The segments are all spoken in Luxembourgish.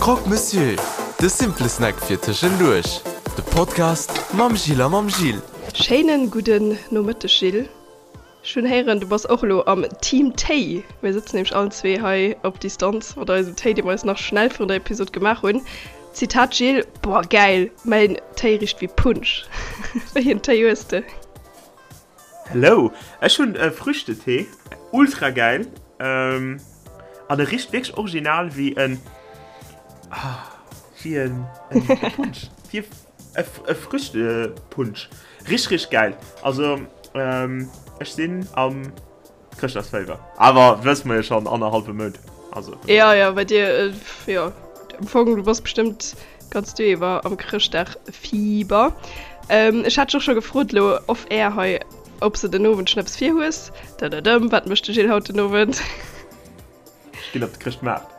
Croque Monsieur, de simple Snack fir tëschenduerch. De Podcast mam Jill a mam Gilles. Schéinen gudden Nomëtteg Gilles. Ech hunn héieren du bass och elo am Team Téi. Mir sëtzen nämlech allen zwee hei op Distanz mat eisem Téi dee mer eis nach schnell virun der Episode gemaach hunn. Zitat Gilles, Boah gäil, mäin Téi richt wéi Punsch. Wéi en Téi hues de? Hello, ech hunn e Früchtetee, ultra gäil an e richt wierklech original wéi en, wéi en Punsch, wéi e Früchtepunsch, richteg richteg gäil. Also ech sinn am Chrëschtdagsféiwer, awer wësse mer jo schonn annerhallwe Mount, also. Jo, jo, bei dir, jo, am Fong, du bass bestëmmt ganz Joer iwwer am Chrëschtdagfieber. Ech hat dech och scho gefrot elo off air hei, ob s de den Owend schonn eppes vir hues. Dëdëdëm, wat mécht de Gilles haut den Owend? Ech ginn op de Chrëschtmaart.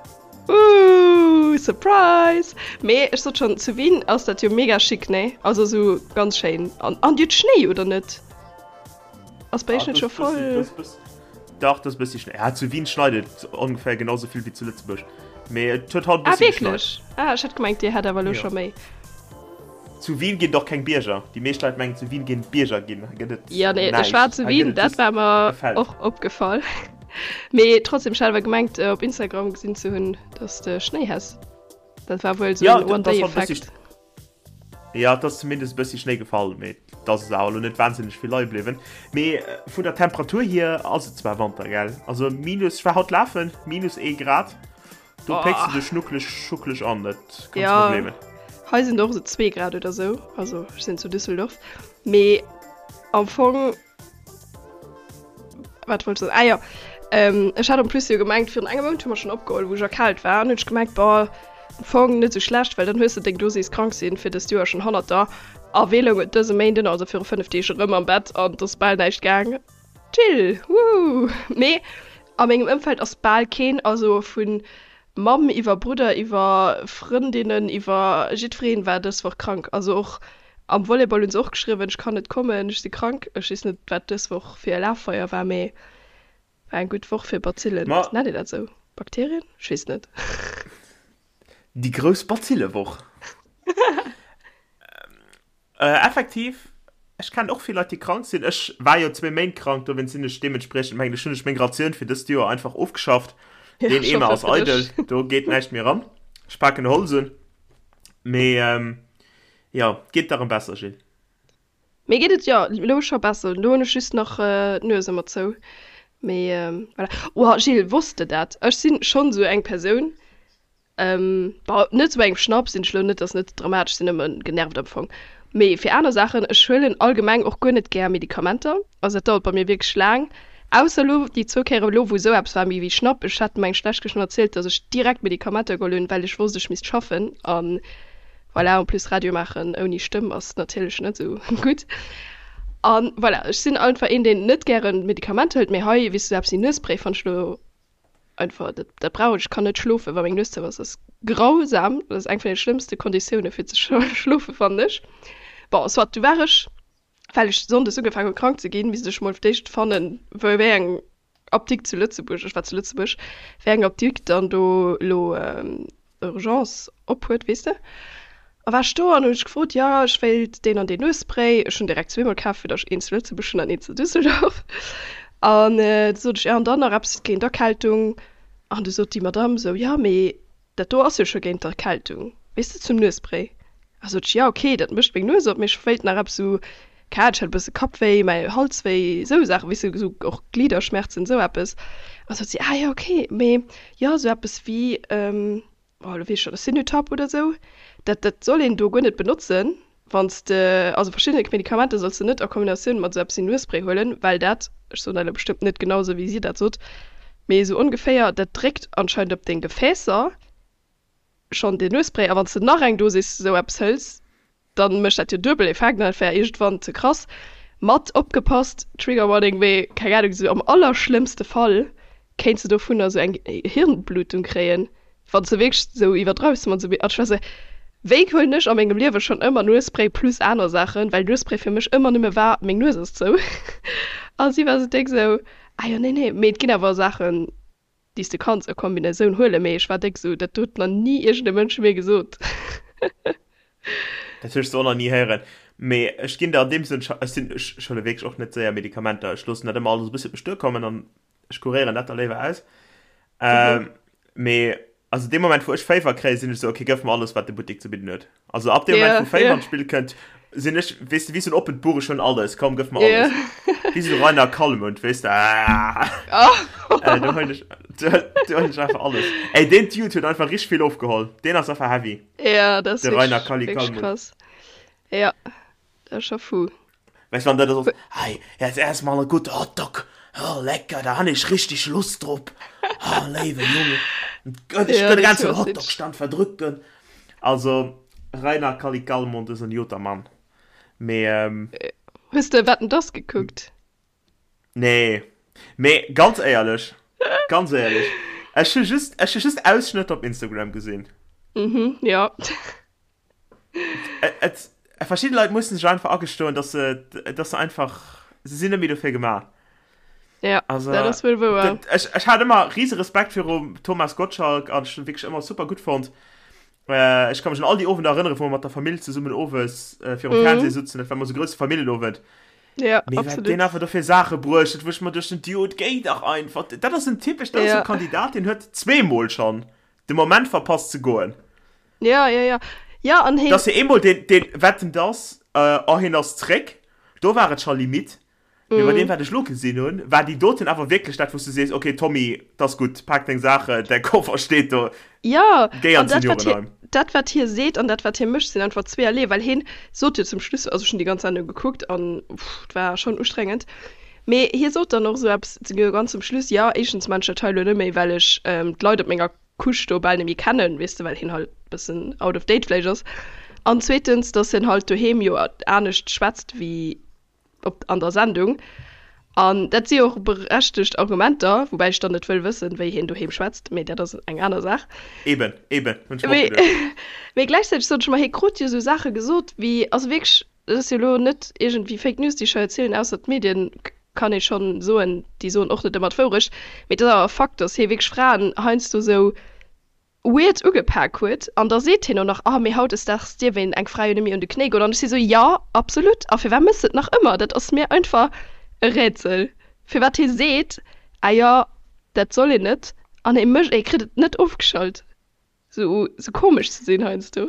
Ooh, Surprise! Mee ech sot schonn, zu Wien ass dat jo mega chic, nee? Also esou ganz schéin. An, an dir hutt Schnéi, oder net? Ass bei iech net scho voll? Dach, dat ass e bëssi Schnéi. Ja, zu Wien schneit et ongeféier genau sou vill wéi zu Lëtzebuerg. Mee et huet haut e Ah, bëssi geschneit. wierklech? Ah, ech hat gemengt, dir hätt awer elo scho méi. Zu Wien ginn et och keng Bierger. Déi meescht Leit mengen, zu Wien géint et Bierger ginn. Hei gëtt et Ja, nee, ech war zu Wien, dat war mer och opgefall. Mee trotzdem, ech hat awer gemengt, op Instagram gesinn ze hunn, dass de Schnéi häss. Dat war wuel sou en One-Day-Effekt. Jo, et ass zumindest e bëssi Schnéi gefall, mee et ass awer elo net wahnsinneg vill leie bliwwen. Mee vun der Temperatur hier ass et zwar Wanter, gell? Also minus, ech war haut lafen, minus ee Grad, do pécks de dech schnuckeleg schuckeleg an, dat kanns de mer gleewen. Jo, hei sinn et och esou zwee Grad oder sou, also ech sinn zu Düsseldorf, mee am Fong. Wat wollt ech soen? Ah jo, ech hat en plus jo gemengt, virun engem Mount hu mer schonn opgeholl, wou ech erkaalt war, an hunn ech gemengt, boah, am Fong net esou schlecht, well dann hues de deng Dosis krank sinn fir dëst Joer schonn hannert der. A wéi loung et dëse Méinden, also viru 5 Deeg, erëm am Bett an et ass bal näischt gaang. Chill, wooh! Mee a mengem Ëmfeld ass bal keen, also vu Mamm iwwer Brudder iwwer Frëndinnen iwwer jiddwereen war dës Woch krank. Also och am Volleyball hunn se och geschriwwen, ech kann net kommen, ech si krank. Ech weess net wat dës Woch fir e Laffeier war, mee war eng gutt Woch fir Bazillen. Ma Nennt een dat esou? Bakterien? Ech weess net. Déi grouss Bazillewoch. Effektiv, ech kennen och vill Leit déi krank sinn. Ech war jo zwéi Méint krank, dowéinst sinn ech deementspriechend, mengen ech, hunn ech meng Ratioun fir dëst Joer einfach ofgeschafft. Ja, Deen ech Eemer hoffe ass fir eidel, dech. do geet näischt méi eran. Ech paken Holz un. Mee jo, geet der erëm besser, Jill? Mir geet et jo elo scho besser. Elo hunn ech just nach d'Nues ëmmer zou. Mee voilà. Oh Gilles, wosst de dat? Ech sinn schonn esou eng Persoun, Bon, net sou bei engem Schnapp sinn ech lo net, ass net dramatesch, sinn nëmmen genervt am Fong. Mee fir aner Saachen, ech huelen allgemeng och guer net gär Medikamenter, also dat dauert bei mir wierklech laang, ausser lo déi zwou Kéieren elo wou esou eppes war méi wéi Schnapp. Ech hat mengen d'lescht Kéier schonn erzielt, dass ech direkt Medikamenter geholl hunn, well ech wosst ech misst schaffen an voilà, en plus Radio maachen ouni Stëmm ass natierlech net esou gutt. An voilà, ech sinn einfach een deen net gären Medikamenter hëlt, mee hei weess de sou eppes wéi Nuesspray fannt ech lo Einfach, dat, dat brauch ech. Ech kann net schlofen, wa meng Nues zou ass. Dat ass grausam. Dat ass eng vun de schlëmmste Konditioune fir ze schlofen, fannen ech. Bon, soit, du war ech, well ech sonndes ugefaangen hunn krank ze ginn, misst ech mol fir d'éischt fannen, wou, wéi eng Apdikt zu Lëtzebuerg, ech war zu Lëtzebuerg, wéi eng Apdikt dann do elo Urgence op huet, weess de. A war ech do an hunn ech gefrot, jo ech wéilt deen an deen Nuesspray. Ech hunn direkt zweemol kaf, fir datt ech een zu Lëtzebuerg hunn an een zu Düsseldorf. An du sot ech, jo an dann nach eppes géint Erkältung. An du sot déi Madamm esou, jo mee dat do ass jo scho géint d'Erkältung, weess de, zum Nuesspray. A sot ech, jo ok, dat mécht meng Nues op, mee ech wéilt nach eppes esou, keng Ahnung, ech hat e bësse Kappwéi, mäi Halswéi, esou Saachen, weess de, esou och Gliederschmerzen, esou eppes. A sot si, ah jo ok, mee jo esou eppes wéi, oh lo weess ech schonn, Sinutab oder sou, dat dat soll een do guer net benotzen, wann s de, also verschidde Medikamenter solls de net a Kombinatioun mat esou eppes wéi Nuesspray huelen, well dat, ech soen dat elo bestëmmt net genau esou wéi si dat sot, mee esou ongeféier, dat dréckt anscheinend op deng Gefäässer schonn den Nuesspray, a wann s de nach eng Dosis esou eppes hëls, dann mécht dat jo duebel Effekt an dat wär iergendwann ze krass. Mat opgepasst, Trigger Warning, mee keng Ahnung, sou am allerschlëmmste Fall kéints de dovunner sou eng Hirnblutung kréien, wann s de wierklech sou iwwerdreiws mat sou. An ech war sou, wéi huelen ech a mengem Liewe schonn ëmmer Nuesspray plus aner Saachen, well Nuesspray fir mech ëmmer nëmme war, meng Nues ass zou. A si war sou déck sou, ah jo, nee, nee, mee et ginn awer Saachen. déi s de kanns a Kombinatioun huelen, mee ech war déck esou, dat huet nach ni iergend e Mënsch mir gesot. Dat hues de och nach ni héieren. Mee ech ginn der an deem Sënn, ech sinn, ech huele wierklech och net séier Medikamenter, ech loossen dat ëmmer alles e bëssi op mech duerkommen an ech kuréieren dat da léiwer aus. Ähm, mee also dee Moment, wou ech Féiwer kréien, sinn ech esou, okay, gëff mer alles, wat de Buttek ze bidden huet. Also ab dem Moment, wou Féiwer an d'Spill kënnt, sinn ech, weess de, wéi esou en oppent Buch, ech hunn alles, komm, gëff mer alles. Wéi esou de Reiner Calmund, weess de, ah. Äh, do huelen ech, do, do huelen ech einfach alles. Ey, deen Dude huet einfach richteg vill ofgeholl. Deen ass einfach heavy. Ja, dat ass De Reiner wierklech, Kalli wierklech Calmund. krass. Ja, dat ass scho fou. Weißt du, wann der da so, hey, jetzt erstmal ein guter Hotdog, oh, lecker, da han ich richtig Lust drop, oh, léiwe Junge, ich Ja, könnte den dat ganzen ass Hotdog-Stand verdrücken. Also, Reiner Kalli Calmund ist ein joter Mann. Mee, ähm, Hues de Wetten, dass gekuckt? nee. Mee, ganz éierlech, ganz éierlech, ech hu just, ech hu just Ausschnëtter op Instagram gesinn. Mhm, ja. Et, verschidde Leit mussen sech einfach agestoen, dass se, dass se einfach, se sinn net méi dofir gemaach. Ja, also, dat ass wuel wouer. Dat, ech, ech hat ëmmer riese Respekt virum Thomas Gottschalk an ech hunn wierklech ëmmer super gutt fonnt. Äh, ech ka mech un all déi Owender erënneren, wou mer mat der Famill zesummen owes äh, virum Mhm. Fernseh sutzen. Dat war ëmmer sou grousse Familljenowend. Ja, Mee wat absolut. deen einfach do fir Saache bruecht huet, wou ech mer duecht, den Dude, géi dach einfach. Dat ass en typesch, dat ass Ja. e Kandidat, deen huet zweemol schonn de Moment verpasst ze goen. Ja, ja, ja. Ja, an heen. Dass hie eemol deen, deen Wetten dass, oh hien ass zréck, do war et scho Limite. Mee bei deem wat ech lo gesinn hunn, war déi doten awer wierklech dat wou s du sees, ok Tommy, 't ass gutt, pak deng Saachen, däi Koffer steet do, Ja, géi an an dat wat hie, d'Seniorenheim. dat wat hie seet an dat wat hie mécht sinn einfach zweeërlee, well hien sot jo zum Schluss, also ech hunn déi ganz Sendung gekuckt an pff, 't war schonn ustrengend, mee hie sot dann och esou eppes ganz zum Schluss, jo éischtens maan ech dat hei lo net méi, well ech d'Leit op menger Couche do bal net méi kennen, weess de, well hien halt bëssen out of date vläicht ass, an zweetens, dass hien halt doheem jo anescht schwätzt wéi op an der Sendung. An dat si jo och berechtegt Argumenter, woubäi ech dann net wëll wëssen, wéi hien doheem schwätzt, mee dat ass eng aner Saach. Eben, eben, hunn ech mer och Mee, geduecht. mee gläichzäiteg sot ech mer, hie krut jo esou Saache gesot wéi, also wierklech, dat ass jo elo net iergendwéi Fake News, déi ech hei erzielen, ausser d'Medien, kann ee schonn soen, déi soen och net ëmmer d'Wourecht, mee et ass awer e Fakt, datt hie wierklech Fraen heiansdo esou weird ugepak huet an da seet hien och nach, ah mee hautdesdaags dierf een eng Fra jo net méi un de Knéi goen an ech si sou, jo absolut a firwat méchs de et nach ëmmer? Dat ass mir einfach e Rätsel firwat hie seet, ah jo dat soll een net an hie mécht, hie kritt et net ofgeschalt sou sou komesch ze sinn heiansdo.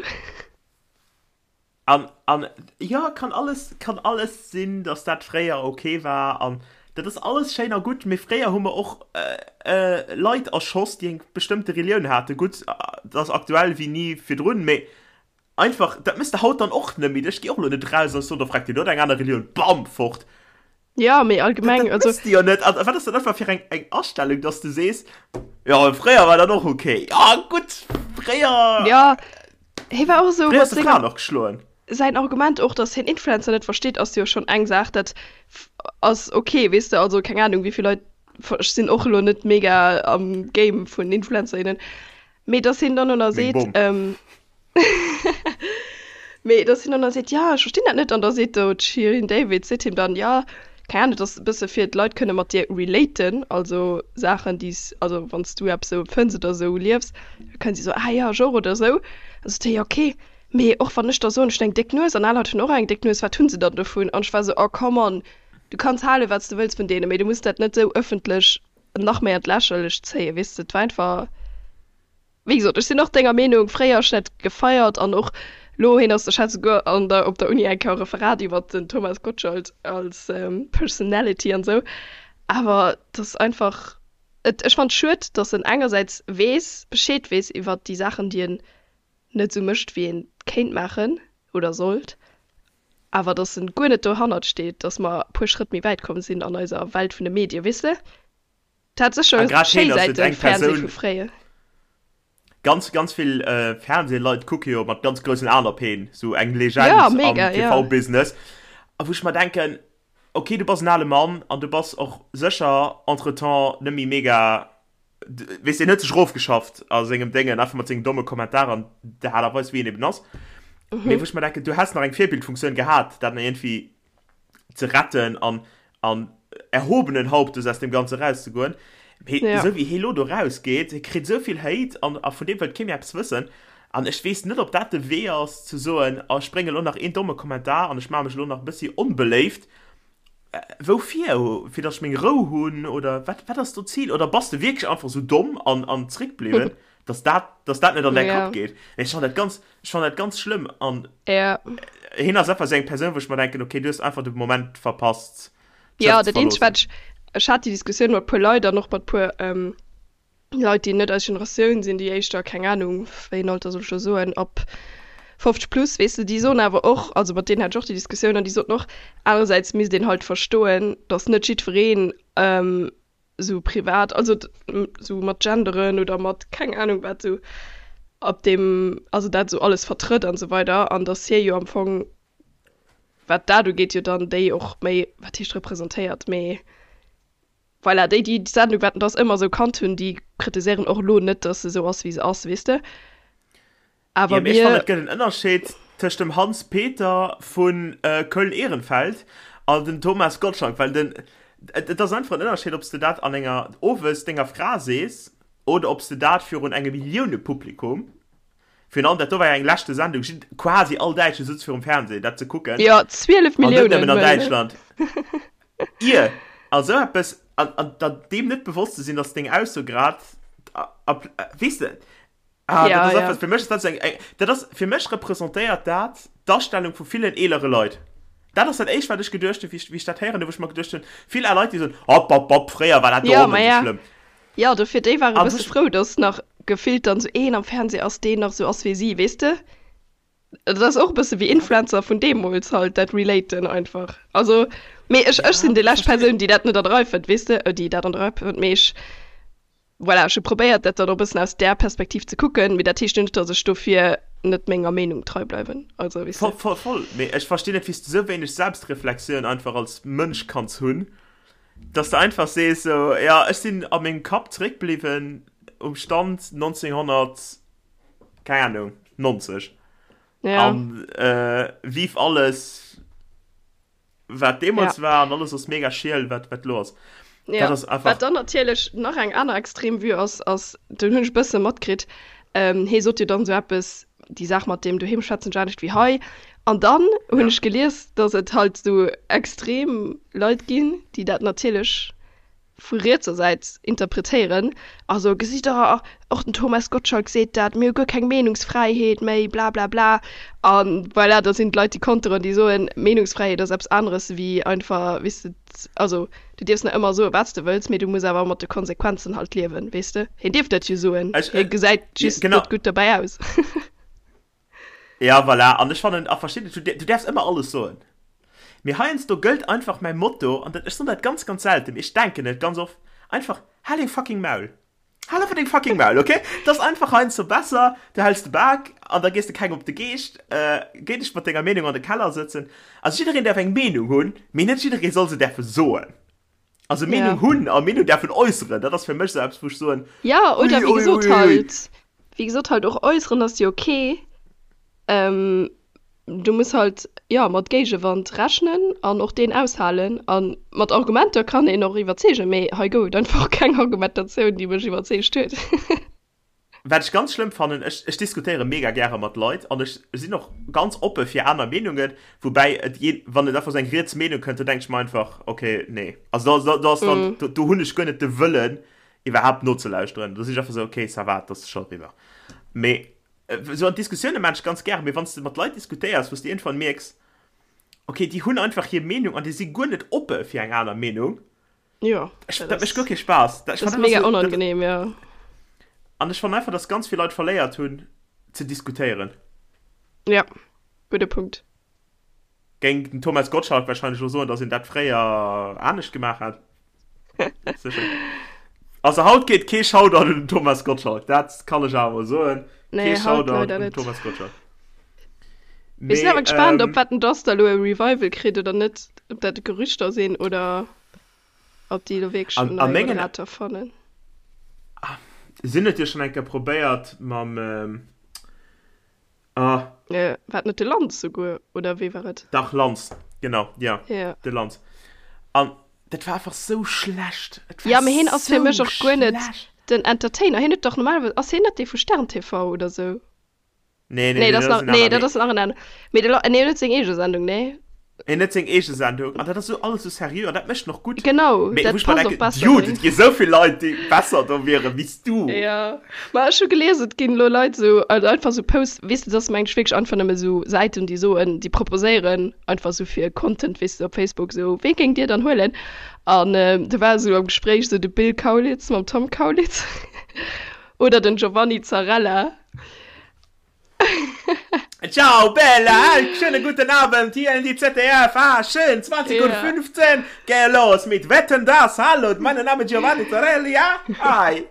An, an, jo, kann alles, kann alles sinn, dass dat fréier ok war an dat ass alles schéin a gutt, mee fréier hu mer och Leit erschoss, déi eng bestëmmte Relioun haten. Gutt, dat ass aktuell wéi ni virdrun, mee einfach, dat méchs de haut dann och net méi. Ech gi och elo net eraus an ech soen, do fregt Dir, do huet eng aner Relioun, bam, fort. Jo, mee allgemeng, Dat also. méchs de jo net. An wat ass dat einfach fir eng, eng Astellung, dass de sees, jo, fréier war dat och ok. Jo, gutt, fréier. Jo, hie war och esou Fréier mat hues de senger. Fraen och geschloen. Säin Argument och, dass hien Influencer net versteet, ass jo schonn eng Saach, dat ass ok, weess de, also keng Anung, wéi vill Leit, ech sinn och elo net mega am Game vun Influencer, innen, mee dass hien dann och nach Meng seet, Bom. Mee dass hien dann da seet, ja, ech verstinn dat net. An da seet do d'Shirin David, seet him dann, ja, keng Ahnung, et ass e bësse fir d'Leit kënne mat dir relaten, also Saachen, déi s, also wann s du eppes esou empfënns oder esou liefs, da kënnen si soen, ah ja, ech och oder esou. Da sot hie, jo okay, mee och wann ech da soen, ech hunn eng déck Nues an aner Leit hunn och eng déck Nues, wat hunn se dann dovun? An ech war esou, oh come on, du kanns hale wat s de wëlls vun deenen, mee du muss dat net esou ëffentlech nach méi an d'Lächerlecht zéien, weess de. Et war einfach. Wéi gesot, ech sinn och denger Meenung, fréier ech dat gefeiert an och lo, hien ass, ech hat souguer an der, op der Uni eng Kéier e Referat iwwert den Thomas Gottschalk als Personality an esou, awer et ass einfach, et, ech fannen et schued, datt en engersäits weess, Bescheed weess iwwert déi Saachen, déi en net esou mécht, wéi en kéint maachen oder sollt, awer datt en guer net dohannert steet, datt mer e puer Schrëtt méi wäit komm sinn an eiser Welt vun de Medien, weess de? Et hat A sécher grad schéi heen ass et Säiten, eng Fernseh Persoun, vu fréier. Ganz, ganz vill Fernseh-Leit kucke jo mat ganz groussen Aen op heen, sou eng Ja, Legend am mega, ja. TV-Business. A wou ech mer denken, ok, du bass en ale Mann an du bass och sécher entretemps net méi mega, weess, deen huet sech erofgeschafft a sengem Déngen, einfach mat sengen domme Kommentaren an der Aart a Weis, wéi en eben ass. Mee wou ech mer denken, du häss nach eng Virbildfunktioun gehat, dat nach iergendwéi ze retten an, an erhobenen Hauptes aus dem Ganze rauszegoen. Mee Ja. esou wéi hie lo do rausgeet, hie kritt esou vill Hate an a vun deem wëllt kee méi eppes wëssen. An ech weess net, ob dat de Wee ass, ze soen, oh ech brénge lo nach een domme Kommentar an ech maache mech elo nach e bëssi onbeléift. Woufir? Fir datt ech meng Rou hunn oder wat, wat ass do d'Zil? Oder bass de wierklech einfach esou domm an an zréckbliwwen, datt dat, datt dat net an däi Ja. Kapp geet? Mee ech fannen dat ganz, ech fannen dat ganz schlëmm an Ja. hien ass einfach esou eng Persoun, wou ech mer denken, okay, du hues einfach de Moment verpasst, Ja, d'Schëff ze dat eenzegt, verloossen. wat ech, ech hat déi Diskussioun mat puer Leit an och mat puer Leit, déi net eis Generatioun sinn, déi éischter, keng Anung, wéi een Alter soll ech do soen, ab 50 plus, weess de, déi soen awer och, also mat deenen hat ech och déi Diskussioun an déi soten och, anerersäits misst een halt verstoen, datt net jiddwereen esou privat, also esou mat Genderen oder mat keng Anung wat esou op deem, also dat esou alles vertrëtt an esou weider an datt hie jo am Fong, wat dat ugeet, jo dann déi och méi, wat heescht representéiert, mee Voilà, déi, déi d'Sendung Wetten, dass ëmmer esou kannt hunn, déi kritiséieren och elo net, dass se esou ass, wéi se ass, weess de. Awer Ja, mee ech fannen, mir. et gëtt en Ënnerscheed tëscht dem Hans Peter vu Köln-Ehrenfeld an dem Thomas Gottschalk, well den, et ass einfach en Ënnerscheed, ob s de dat an enger, owes denger Fra sees oder ob s de dat virun engem Milliounepublikum, virun allem dat do war jo eng leschte Sendung, jid, quasi all Däitsche sutz virum Fernseh, dat ze kucken, Jo, 12 an net Milliounen, nëmmen an wëll. Däitschland. Ier a sou eppes, an, an der deem net bewosst ze sinn, dass deng Ausso grad, weess de, ah, dat Ja, ass ja. einfach, fir mech ass dat sou eng, eng, dat ass, fir mech representéiert dat d'Astellung vu villen eelere Leit. Dat ass dat éischt, wat ech geduecht hunn, wéi ech, wéi ech dat héieren hunn, wou ech mer geduecht hunn, vill al Leit, déi soen, Hopp, hopp, hopp, fréier war dat do Ja, och ma net esou ja. schlëmm. Ja, dofir, déi ware An bësse ech. frou, dass nach gefillt dann sou een am Fernseh ass, deen nach sou ass wéi si, weess de? Dat ass och e bësse wéi Influencer vun deemools halt, dat relaten einfach. Also, mee ech, ech sinn déi lescht Persoun, déi dat net an der Rei fënnt, weess de, déi dat an der Rei fënnt, mee ech, voilà, ech hu probéiert, dat dann och e bëssen aus där Perspektiv ze kucken, mee dat heescht jo net, datt ech dofir net menger Meenung trei bleiwen, also, weess de. Voll, voll, voll, mee ech verstinn net, wéi s de sou wéineg Selbstreflexioun einfach als Mënsch kanns hunn, dass de einfach sees, sou, jo, ech sinn a mengem Kapp zeréckbliwwen um Stand 1900. keng Ahnung, 90. Ja. An äh, vive alles, wat deemools ja. war, an alles ass mega schiel, wat, wat lo ass. Ja. Dat ass einfach. Wat dann natierlech nach eng aner extrem Vue ass, ass, den hunn ech bësse matkritt, ähm, hee sot jo dann sou eppes, déi Saach mat deem doheem schwätzen ech anescht wéi hei. An dann hunn Ja. ech gelies, dass et halt sou extrem Leit ginn, déi dat natierlech vu rietser Säit interpretéieren, also gesitt der, och den Thomas Gottschalk seet dat, mir hu guer keng Meenungsfräiheet méi, blablabla. A voilà, da sinn d'Leit, déi konteren, déi soen, Meenungsfräiheet ass eppes aneres wéi einfach, weess de, also du dierfs nach ëmmer soen, wat s de wëlls, mee du muss awer mat de Konsequenzen halt liewen, weess de. Hien dierf dat jo soen, hie gesäit just net gutt dobäi aus. Ja, voilà. An ech fannen, a versteet et, du, du däerfs ëmmer alles soen. Mee heiansdo gëllt einfach mäi Motto, an dat, ech soen dat ganz, ganz selten, mee ech denken et ganz oft, einfach, Hal deng fucking Maul! Hal einfach deng fucking Maul, okay? Dat ass einfach heiansdo besser, du häls de Bak an da gees de kengem op de Geescht, géi dech mat denger Meenung an de Keller sëtzen. Also jiddereen däerf eng Meenung hunn, mee net jidderee soll se däerfe soen. Also Meenung Ja. hunn a Meenung däerfen äusseren, dat ass fir mech esou eppes, wou ech soen, Ja, oder ui, wéi ui, gesot ui, ui. halt, wéi gesot halt och äusseren ass jo ok. Ähm, du muss halt, jo, mat Géigewand rechnen an och deen aushalen. A mat Argumenter kann een och iwwerzeegen, mee hei gouf et einfach keng Argumentatioun, déi mech iwwerzeegt huet. Wat ech ganz schlëmm fannen, ech, ech diskutéiere mega gäre mat Leit an ech sinn och ganz oppe fir aner Meenungen, woubäi et jee, wann et einfach esou eng riets Meenung kënnt, do denke ech mer einfach, okay, nee. Also do, do, do ass dann, do, do hunn ech guer net de Wëllen iwwerhaapt nozelauschteren. Do sinn ech einfach esou, okay, ça va, et ass scho eriwwer. Mee esou an Diskussioune maan ech ganz gäre, mee wann s de mat Leit diskutéiers, wou s de iergendwann mierks, okay, déi hunn einfach hir Meenung an déi si guer net oppe fir eng aner Meenung, Jo, Ech, dat dat mécht guer ass, kee Spaass. Dat, ech dat ass fannen mega einfach so, dat, onangenehm, ja. an ech fannen einfach, dass ganz vill Leit verléiert hunn ze diskutéieren. Ja, gudde Punkt. Géing den Thomas Gottschalk wahrscheinlech elo soen, dass een dat fréier anescht gemaach hätt. Sécher. Also haut geet kee Shoutout un den Thomas Gottschalk, dat kann ech awer mol soen. Kee Nee, haut Shoutout leider un den net. Thomas Gottschalk. Mir sinn Mee, awer gespaant, ob ähm, Wetten dass da elo e Revival kritt oder net, ob dat Gerüchter sinn oder ob déi elo wierklech an, en a neie mengen Moderator fannen. Sinn et jo schonn eng Kéier probéiert mam, ähm, ah, Äh, war et net de Lanz souguer, oder wee war et? Dach, Lanz, genau, ja, Ja. de Lanz. An. Dat war einfach sou schlecht. Et war Ja, mee hien ass fir mech och guer net den Entertainer. Hien huet dach normalerweis, ass hien net dee vu Stern TV oder sou? Nee, nee, nee, dat ass nach, nee, dat ass nach en aner. Mee de, nee, hien huet seng eege Sendung, nee? Hien huet seng eege Sendung an dat ass sou alles sou seriö an dat mécht en och gutt. Genau, mee dat passt och besser. Dude, et gi sou vill Leit, déi besser do wieren wéi s du. Ja, ma ech hu gelies, et ginn elo Leit sou, also einfach sou Posts, weess de, dat ass mengen ech wierklech einfach nëmme sou Säiten, déi soen, déi proposéieren einfach sou fir Content, weess de, op Facebook sou, wee géingt dir dann huelen? An do war sou am Gespréich sou de Bill Kaulitz mam Tom Kaulitz oder den Giovanni Zarrella. Ciao Bella, schönen guten Abend hier in die ZDF. Ah, schön, 20 Uhr 15. Geh los mit Wetten das. Hallo, mein Name Giovanni Zarelli. Ja? Hi.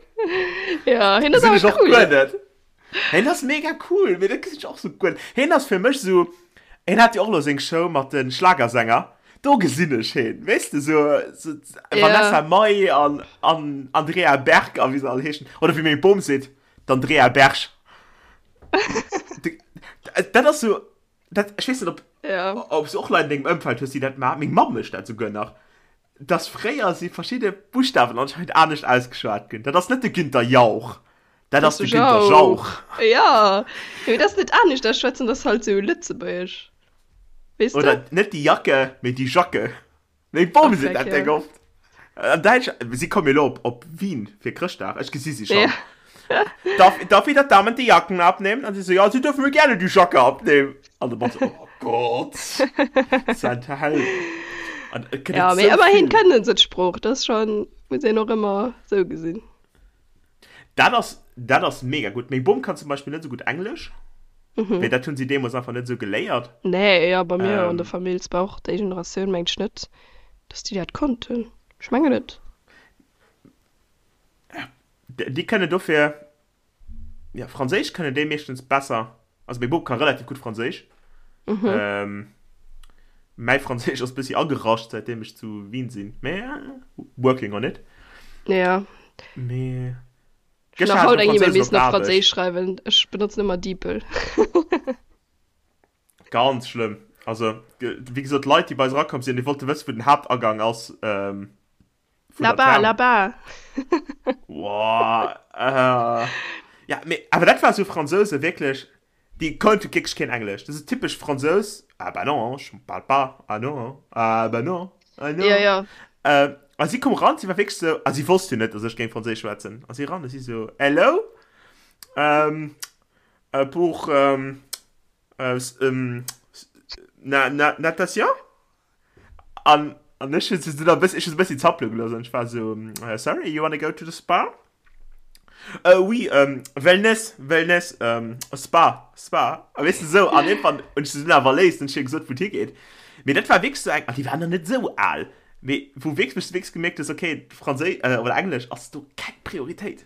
Ja, hien ass awer cool. Hien ass mega cool, mee dat gesinn ech och sou guer net. Hien ass fir mech sou, hien hat jo och elo seng Show mat de Schlagersänger, do gesinn ech hien, weess de, sou, sou Vanessa Mai an, an Andrea Berg a wéi se all heeschen, oder wéi meng Bom seet, D'Andrea Berg. Dat ass sou, dat, ech weess net, ob, ja. ob s du och Leit an dengem Ëmfeld hues, déi dat maachen. Meng Mamm mécht dat souguer nach. Dass fréier si verschidde Buschtawen anscheinend anescht ausgeschwat ginn. Dat ass net de Günther Jauch, dat ass de Günther Jauch. Ja, mee dat ass net anescht ausschwätzen, dat ass halt sou lëtzebuergesch, weess de? Oder net déi Jacke, mee déi Jacke. Meng Bom seet dat déck oft. An Däitsch, si komme jo elo op, op Wien fir Chrëschtdag, ech gesi si schon. Ja. Darf, darf ich der Damen die Jacken abnehmen? An si so, ja, sie dürfen mir gerne die Jacke abnehmen. An de Mann so, oh Gott, sein Held. An et gëtt Ja, et mee sou ëmmerhin vill. kënnen se d'Sprooch, dat ass schon, muss een och ëmmer sou gesinn. Dat ass, dat ass mega gutt. Meng Bom kann zum Beispill net esou gutt Englesch. Mhm. Mee dat hunn si deemools einfach net esou geléiert. Nee, jo, bei mir an der Famill, et war och déi Generatioun, mengt ech net, dass déi dat konnten. Ech mengen net. Déi kënnen dofir, jo, Franséisch kënnen déi meeschtens besser. Also meng Bom ka relativ gutt Franséisch. Mhm. Mäi Franséisch ass bëssi agerascht, säitdeem ech zu Wien sinn. Mee working on it. Ja. Mee. Ech hunn nach haut eng E-Mail missen op Franséisch schreiwen. Ech benotzen ëmmer DeepL. Ganz schlëmm. Also, wéi gesot, d'Leit, déi bei eis erakomm sinn, déi wollte wëssen, wou den Haaptagang ass. Ähm, vun der Là-bas, là-bas. Boah, äh, ja, mee, awer dat war sou Fransouse, wierklech, déi konnte wierklech keen Englesch. Dat ass typesch Fransous, Ah bah non, je parle pas, ah non, ah bah non, ah non. Ja, ja. Äh, a si koum ran, si war wierklech sou, a si wosst jo net, dass ech géing Franséisch schwätzen. A si ran a si sou, Hello, ähm, äh, pour, ähm, äh, ähm, na, na, natation? An, an ech hunn se dunn e bëssi, ech hunn se e bëssi zappele gelooss an ech war sou, Sorry, you wanna go to the spa? Uh, oui, um, Wellness, Wellness, um, Spa, Spa. A weess de sou, an iergendwann hunn ech se dunn awer erléist an ech hu hir gesot, wou et higeet. Mee dat war wierklech sou eng, an déi war nach net sou al, mee wou wierklech, wou s de wierklech gemierkt hues, okay, Franséi, oder Englesch ass do keng Prioritéit.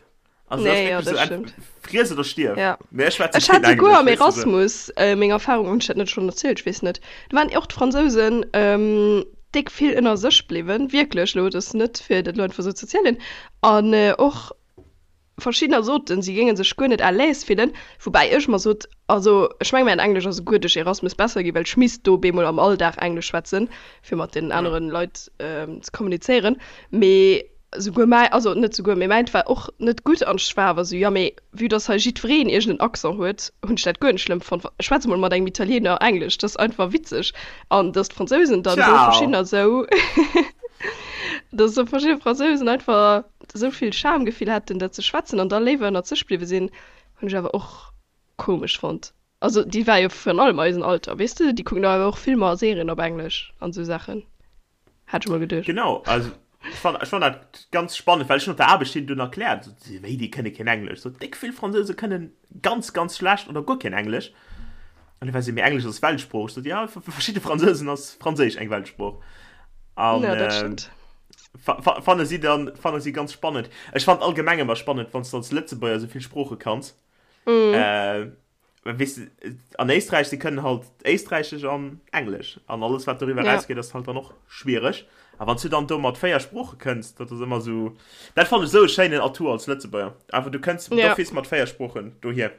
Also das nee, ja, das so stimmt. Friess oder stirb. Ja. Mee ech schwätze Ech hat souguer am Erasmus äh, meng Erfahrung, hunn ech dat net schonn erzielt, ech weess net. Do waren och d'Fransousen ähm, déck vill ënner sech bliwwen, wierklech elo, dat ass net fir dat elo einfach sou ze erzielen. An äh, och verschiddener soten, si géinge sech guer net à l'aise fillen, woubäi ech mer sot, also ech meng mäin Englesch ass souguer duerch Erasmus besser ginn, well ech misst do bemol am Alldag Englesch schwätzen, fir mat deenen aneren Leit ähm, ze kommunizéieren. Mee Souguer mäi, also net souguer, mee mäint war och net gutt an ech war awer esou, jo mee vue dass hei jiddwereen iergend en Accent huet, hunn ech dat guer net schlëmm fonnt. Schwätz emol mat engem Italiener Englesch, dat ass einfach witzeg. An dass d'Fransousen dann do verschiddener esou, dass esou verschidde Fransousen einfach esou vill Schamgefill hätten dat ze schwätzen an da léiwer ënnert sech bliwwe sinn, hunn ech awer och komesch fonnt. Also déi war jo virun allem eisen Alter, weess de, déi kucken do awer och Filmer a Serien op Englesch an esou Saachen. Hat ech mol geduecht. Genau, also ech fand, ech fand dat ganz spannend, well ech hunn op der Aarbecht hinnen dunn erkläert, so, si, wéi, déi kënne keen Englesch. So, déck vill Fransouse kënnen ganz, ganz schlecht oder guer keen Englesch. An du war si, mee Englesch ass Weltsprooch. Ech sot, ja, fir verschidde Fransousen ass Franséisch eng Weltsprooch. An Ja, dat stëmmt. fa, fa, fanne si dann, fanne si ganz spannend. Ech fand allgemeng ëmmer spannend, wann s du als Lëtzebuerger esou vill Sprooche kanns. Mm. Äh, Weess de, an Éisträich, si kënnen halt Éisträichesch an Englesch. An alles, wat doriwwer Ja. erausgeet, ass halt dann och schwiereg. A wann s du dann do mat 4 Sprooche kënns, dat ass ëmmer esou, dat fannen ech esou e schéinen Atout als Lëtzebuerger. Einfach du kënns Ja. d'office mat 4 Sproochen dohier.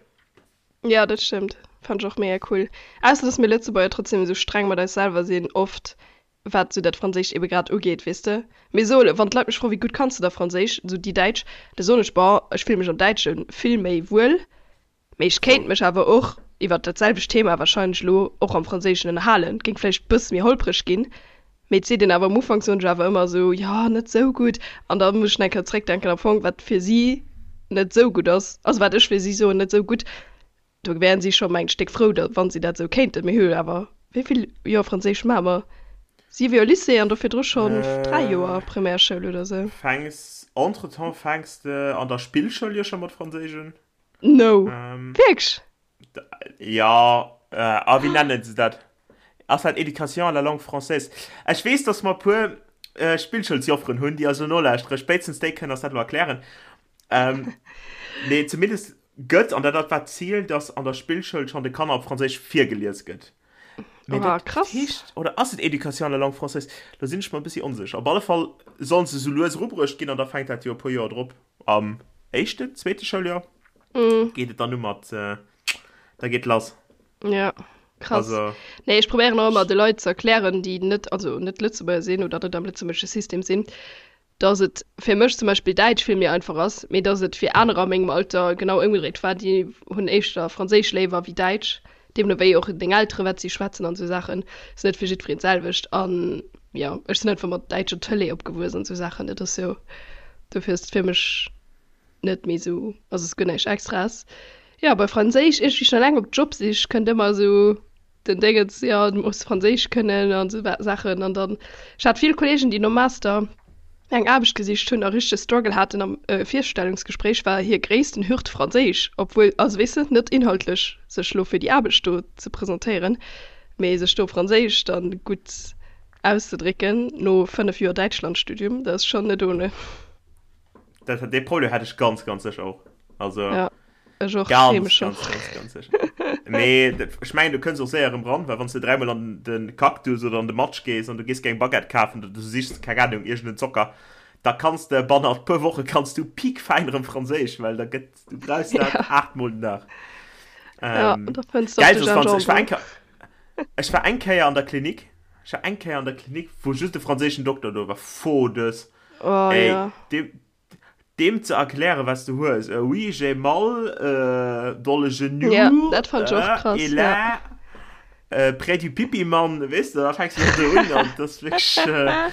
Ja, dat stëmmt. Fannen ech och mega cool. Ausser, dass mir Lëtzebuerger trotzdem esou streng mat eis selwer sinn, oft. Wat esou dat Franséischt ebe grad ugeet, weess de. Mee so, wann d'Leit mech froen, wéi gutt kanns de da Franséisch, esou déi Däitsch, da soen ech, bon, ech fille mech am Däitsche vill méi wuel, mee ech kéint mech awer och iwwert dat selwecht Thema wahrscheinlech elo och am Franséischen ënnerhalen. Et géing vläicht bësse méi holpreg ginn, mee et seet een awer am Ufank, soen ech awer ëmmer esou, jo, net esou gutt. An da muss ech nach eng Kéier zréckdenken, am Fong, wat fir si net esou gutt ass, also wat ech fir si soen, net esou gutt, Do wären si scho mengt Stéck frou, da wann si dat esou kéinten. Mir hu jo awer, wéi vill Joer Franséisch maache mer? Siwe Joer Lycée an do virdru schonn 3 Joer Primärschoul oder esou. Fänks, entretemps fänks de an der Spillschoul jo scho mat Franséisch un. No, wierklech? Jo, a wéi nennen se dat? Ass dat Éducation à la langue française? Ech weess, dass mer e puer Spillschoulsjofferen hunn, déi eis elo nolauschteren. Spéitstens déi kënnen eis dat elo erklären. Nee, zumindest Gëtt, an dat war d'Zil, dass an der Spillschoul schonn de Kanner op Franséisch virgelies gëtt. Mee Oha, dat krass. heescht, oder ass et Éducation à la langue française? Do sinn ech mer e bëssi onsécher. Op alle Fall sollen se sou lues erubruecht ginn an da fänkt dat jo e puer Joer drop, am éischten, zweete Schouljoer geet et dann u mat, da geet lass. Ja, krass. Also. Nee, ech probéieren och ëmmer de Leit ze erklären, déi net, also net Lëtzebuerger sinn oder net am lëtzebuergesche System sinn, dass et fir mech zum Beispill Däitsch vill méi einfach ass, mee dass et fir anerer a mengem Alter genau ëmgedréit war, déi hunn éischter Franséisch léiwer wéi Däitsch, deemno wéi och deng Elteren, wat si schwätzen an esou Saachen, ass net fir jiddwereen d'selwecht. An jo, ech sinn einfach mat däitscher Tëlee opgewuess an esou Saachen, dat ass jo, dofir ass et fir mech net méi esou, also ass guer näischt Extraes. Jo, bei Franséisch, iergendwéi schon eleng op Jobsich kënnt ëmmer esou den Déngens, jo du muss Franséisch kënnen an esou Saachen an dann, ech hat vill Kollegen déi nom Master eng Aarbecht gesicht hunn a richtege Struggle haten am Virstellungsgespréich war hir gréissten Hürd Franséisch, obwuel, also weess de, net inhaltlech sech lo fir déi Aarbecht do ze presentéieren, mee sech do op Franséisch dann gutt auszedrécken no 5 Joer Däitschlandstudium, dat ass schonn net ohne. Dat, dee Problem hat ech ganz, ganz sécher och. Also. Ja. Ech och, Ganz, schäme schon. ganz, ganz, ganz sicher. Mee dat- ech mengen, du kënns och séier erëm ran, well wann s du dräimol an de Cactus oder an de Matsch gees an du gees geng Baguette kafen oder du sichs, keng Ahnung, iergend en Zocker, da kanns de bannert puer Woche kanns du piekfäin erëm Franséisch, well da gëtt, du brauchs dat Ja. aachtmol den Dag. Ja, Ähm, da fënns du och geil, de soss wann s, ech war Gingembre. eng Kéier, ech war eng Kéier an der Klinik, ech war eng Kéier an der Klinik, wou just e franséischen Dokter do war, Fodes, Oh ey, ja. deem, Deem ze erklären wat s du hues, oui j'ai mal dans le genou, Ja, dat fand ech och krass, et ja. là près du Pipi-Mann, weess de, da fänks du do un an dat ass wierklech,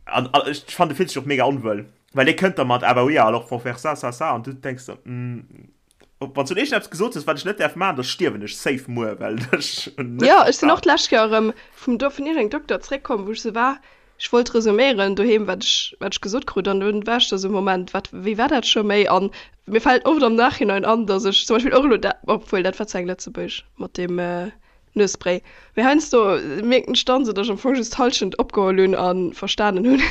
an ech fannen du fills dech och mega onwuel, well dee kënnt da mat ah bah oui alors faut faire ça, ça, ça an du denks der, wann s du iergendeppes gesot hues wat ech net däerf maachen, da stierwen ech safe muer, well ech hunn net Jo, ech sinn och verstan. d'lescht Kéier erëm vum do vun iergendengem Dokter zréckkomm, wou ech sou war, Ech wollt resuméieren doheem, wat ech, wat ech gesot krut, an dunn war ech da sou, Moment, wat, wéi war dat scho méi? An mir fält oft am Nachhinein an, datt ech zum Beispill och elo dat, obwuel dat war zwar eng Lëtzebuergesch mat deem Nuesspray, mee heiansdo mierken ech dann sou, datt ech am Fong just d'Hallschent opgeholl hunn a verstanen hunn.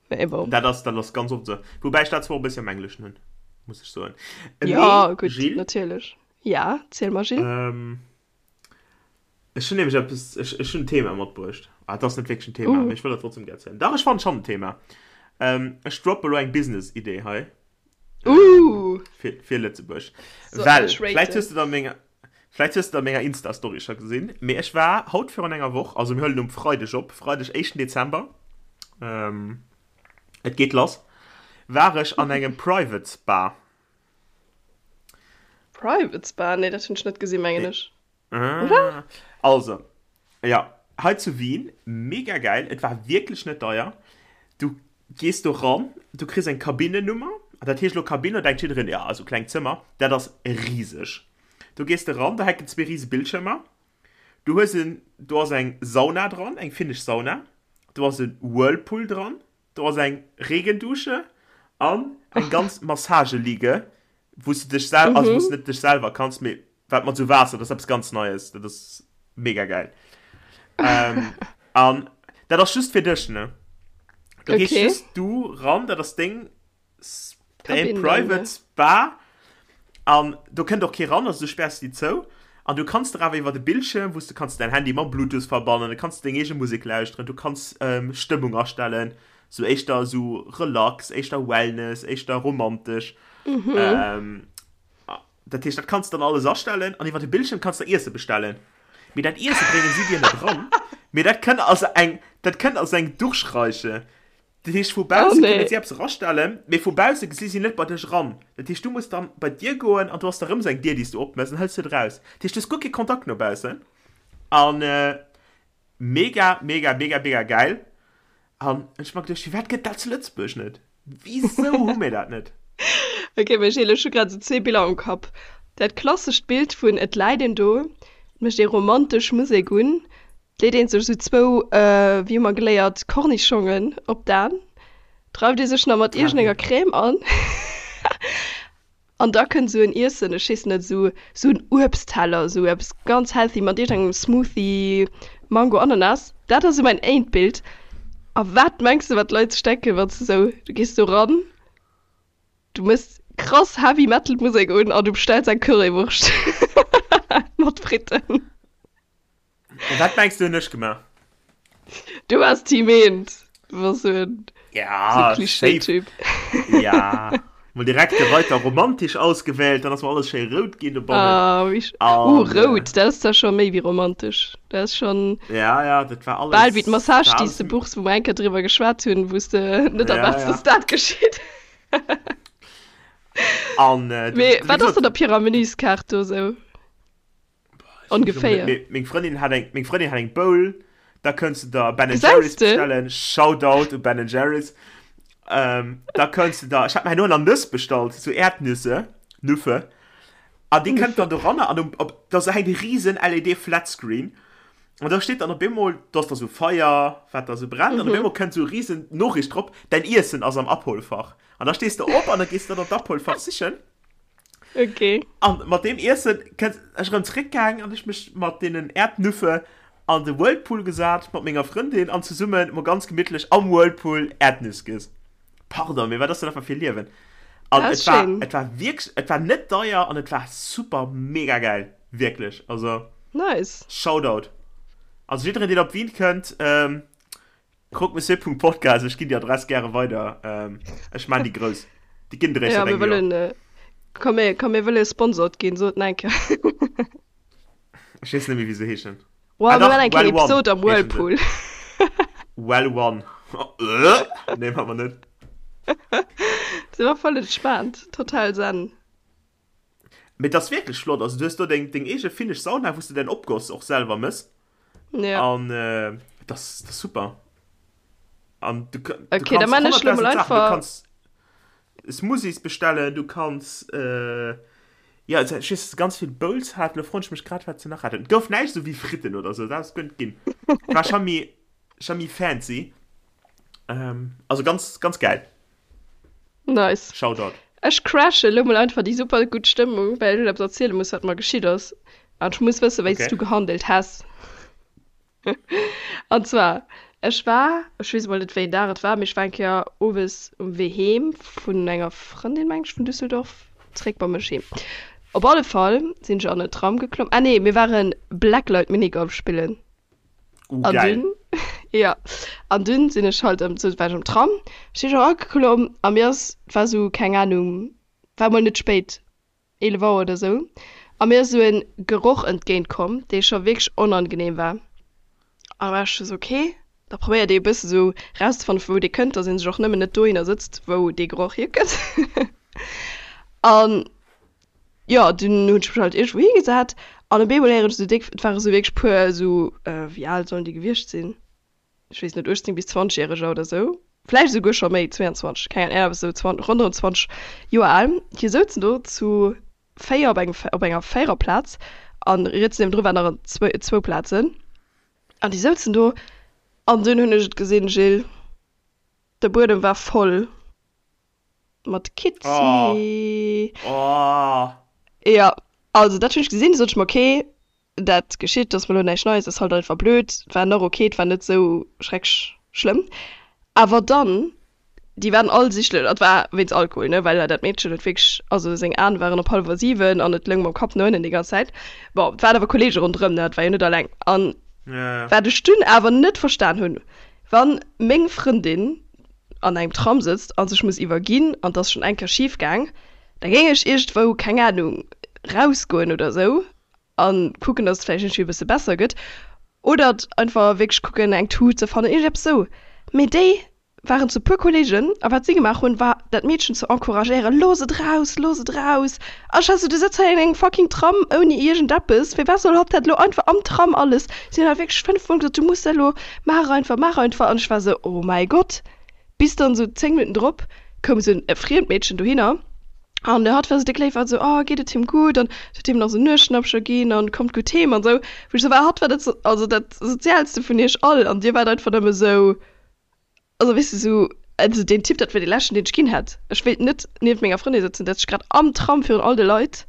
Mee bon. Dat ass, dat ass ganz oft sou. Woubäi ech dat zwar och e bëssi am Engleschen hunn, muss ech soen. Jo, Mee, gutt, Jill. natierlech. Ja, ziel mer, Jill. Ech hunn nämlech eppes, ech, ech hunn en Thema matbruecht. Ah, et ass net wierklech en Thema, Uh. mee ech wëll dat trotzdem gär erzielen. Dach, ech fannen schonn en Thema. Ähm, ech droppe lo eng Business-Idee hei. Ähm, Uh. fir, fir Lëtzebuerg. So, Well, ech vläicht raten. hues du dat an menger, vläicht hues du dat an menger Insta-Story scho gesinn, mee ech war haut virun enger Woch, also mir huelen um Freideg op, Freideg, éischten Dezember, ähm, et geet lass, war ech an engem Private Spa. Private Spa? Nee, dat hunn ech net gesinn, mengen ech. Oder? Also, ja, hei zu Wien, mega geil, et war wierklech net deier. Du gees do ran, du kriss eng Kabinennummer, dat heescht elo Kabinn, da denkt jiddereen, ja, esou klengt Zëmmer, dat ass riseg. Do gees de ran, do hänken zwee rise Bildschirmer, du hues en, do ass eng Sauna dran, eng finnesch Sauna, do ass e Whirlpool dran, do ass eng Regendusche an eng ganz Massageliege, wou s du dech sel, also wou s du net dech selwer kanns, mee wat mat sou Waasser, dat ass eppes ganz Neies, dat ass mega geil. Ähm, an dat ass just fir dech, ne? Do gees Okay. just du ran, dat ass deng, s- däin Kabinn dann, private ne? Spa an do kënnt och kee ran, also du späers déi zou an du kanns der awer iwwer de Bildschirm, wou s du kanns däin Handy mam Bluetooth verbannen, du kanns deng eege Musek lauschteren, du kanns ähm, Stëmmung astellen, sou éischter sou relax, éischter Wellness, éischter romantesch. Mhm. Ähm, Dat heescht, dat kanns de dann alles astellen an iwwer de Bildschirm kanns de Iesse bestellen. Mee dat Iesse brénge si dir net eran, mee dat kënnt als eng, dat kënnt als eng Durchreiche. Dat heescht, vu Oh bausse kënne nee. si eppes erastellen, mee vu bausse gesi si net bei dech eran. Dat heescht, du muss dann bei d'Dier goen an do ass da rëm esou eng Dier, déi s du opmëss an hëls du et eraus. Dat heescht, du hues guer kee Kontakt no baussen. An mega, mega, mega, mega gäil. An ech hu mer geduecht, firwat gëtt dat zu Lëtzebuerg net? Wisou hu mir dat net? Ok, mee Gilles, ech hu grad esou zwee Biller am Kapp. Dat klassescht Bild vun et läit een do, et mécht ee romantesch Musek un, et leet een sech esou zwou, wéi hu mer geléiert, Kornischongen op d'Aen, dreift ee sech nach mat iergendenger Crème an. An da kënnt esou en Iessen, ech weess net, esou esou en Uebstteller, esou eppes ganz healthy mat iergendengem Smoothie, Mango, Ananas. Dat ass esou mäin éint Bild. A wat mengs de, wat d'Leit sech denken, wann s de esou, du gees do ran, du méchs krass Heavy Metal Musek un an du bestells eng Currywurscht mat Fritten. An wat mengs du hunn ech gemaach? Du waars Team Eent. Du waars sou en Ja, sou safe. Klischee-Typ. Ja, mol direkt de Reiter romantisch ausgewählt, dann ass mer alles schéi rout ginn dobannen. Ah, wéi sch Uh, An, äh, rout, dat ass zwar scho méi wéi romantesch. Dat ass schonn ja, ja, dat war bal wéi alles, d'Massage, war déi alles, s de buchs, wou mer eng Kéier driwwer geschwat hunn, wou s de net ja, erwaarts, ja. dass dat geschitt. An, äh, Mee wéi wat ass gesot, dann op hirer Menüskaart do sou? Ongeféier. Meng Frëndin hat eng, meng Frëndin hat eng Bowl, da kënns du der Ben Gesäis Jerry's de? bestellen. Shoutout u Ben Jerry's. Ähm, da kënns du der, ech hat mir herno nach Nëss bestallt, sou Erdnüsse, Nüffe. An déi kënnt dann doranner an um, op, da sou hänkt e riesen LED Flatscreen. An da steet dann op eemol, do ass da sou Feier, wat da sou brennt, an op eemol kënnt sou e riesen Noriicht drop, Däin Iessen ass am Abholfach. An da stees de op an da gees de dann d'Abholfach sichen. Okay. An mat deem Iessen kënnt ech erëm zréckgaang an ech mech mat deenen Erdnüffe an de Whirlpool gesat mat menger Frëndin an zesummen mol ganz gemittlech am Whirlpool Erdnüss giess. Pardon, mee wat ass dat einfach fir e Liewen? An Dat et ass war, schéin. et war wierklech, et war net deier an et war super mega gäil, wierklech. Also Nice. Shoutout. Also jiddereen deen op Wien kënnt, ähm, Croque-Monsieur.podcast, ech ginn déi Adress gäre weider. Ähm, ech maan déi grouss. Déi ginn Ja, eréischt mir an engem Joer. wëllen, äh, komm mir, komm mir wëlle sponsort ginn, sot en eng Kéier. Ech weess net méi wéi se heeschen. Wow, Ah mir dach, maan eng Kéier Well One Episode am heeschen se. Whirlpool. Well One. Äh, nee, maa mer net. Se war voll entspaant, total zen. Mee et ass wierklech flott. Also du hues do deng, deng eege finnesch Sauna, wou s de däin Opgoss och selwer mëss. Ja. An äh, das, das super. An du, du Okay, da kannst man ech lo 100.000 mol Sachen. Du einfach. kannst Smoothies bestellen, du kannst äh, ja, also, ich weiß, ganz vill Bowls hat. Lo froen ech mech grad, wat se nach haten. Et gouf näischt esou wéi Fritten oder sou, dat ass guer net ginn. War scho méi, scho méi fancy. Ähm, also ganz, ganz geil. Nice. Shoutout. Ech crashe lo mol einfach déi super gutt Stëmmung, well ech eppes erziele muss, wat mer geschitt ass. An ech muss wëssen, wéi s Okay. du gehandelt häss. An zwar, ech war, ech weess emol net, wéi een Dag et war, mee ech war eng Kéier owes um Wee heem vun enger Frëndin, meng ech, vun Düsseldorf zréck bei mech heem. Op alle Fall sinn ech an en Tram geklomm. Ah nee, mir ware Blacklight Minigolf spillen. Uh, An geil. dunn, ja, an dunn sinn ech halt ëm, sou war ech am Tram, sinn ech erageklomm a mir ass, et war sou, keng Ahnung, war mol net spéit, 11 Auer oder sou, a mir ass sou en Geroch entgéint komm, dee scho wierklech onangenehm war. An da war ech scho sou, okay, da probéiert ee e bësse sou rauszefannen, vu wou dee kënnt, dass ee sech och nëmmen net dohinner sëtzt, wou dee Geroch hierkënnt. An Jo, dunn hunn ech mech halt iergendwou higesat an op eemol héieren ech esou déck, et ware sou wierklech puer esou, wéi al sollen déi gewiescht sinn, ech weess net, 18 bis 20 järeger oder sou, vläicht esouguer scho méi, 22, keng Ahnung, iergendwas esou 20, ronderëm 20 Joer al. Déi souzen do zu 4 op engem, op enger Véiererplaz an riets niewendru waren nach zwou, zwou Plazen an déi souzen do an dunn hunn ech et gesinn, Gilles, de Buedem war voll. Mat Kitzi. Oh. Oh. Ja, also dat hunn ech gesinn, du sot ech mer, okay, dat geschitt, dat ass mer elo näischt Neies, ass halt einfach blöd. War nach okay, et war net esou schrecklech schlëmm. Awer dann, déi waren all sichtlech, dat war wéinst Alkohol, ne, well dat Meedchen huet wierklech, also seng Aen waren op hallwer 7 an et loung mam Kapp no ënnen déi ganz Zäit. Bon, et waren awer Kolleege ronderëm, ne, et war jo net alleng. An wat ech dunn awer net verstan hunn, wann meng Frëndin an engem Tram sëtzt a sech muss iwwerginn an 't ass schonn eng Kéier schif gaang, da géing ech iergendwou, keng Anung, rausgoen oder sou. A kucken, dass et vläicht iergendwéi e bësse besser gëtt. Oder einfach wierklech kucken, eng Tut ze fannen, iergendeppes esou. Mee déi waren zu puer Kollegen a wat si gemaach hunn, war dat Meedchen ze encouragéieren, Looss et raus, looss et raus! A ech war esou, Du sëtz hei an engem fucking Tram ouni iergendeppes, firwat soll hatt dat elo einfach am Tram alles? Si hunn awer wierklech 5 mol gesot, Du muss dat elo, maach einfach, maach einfach! An ech war esou, Oh mäi Gott! Bis dann esou 10 Minutten drop koum esou e friemt Meedchen dohinner an hatt war esou déck léif, war esou, Oh, geet et him gutt? An huet him nach esou Nuesschnappcher ginn an kommt gutt heem an esou. Wou ech esou war, hatt war dat, also dat soziaalste vun iech all an dir waart einfach nëmme esou, Also weess de sou, also deen Typ dat wier dee leschten deen ech ginn hätt. Ech wéilt net nieft menger Frëndin sëtzen, dat sech grad am Tram virun all de Leit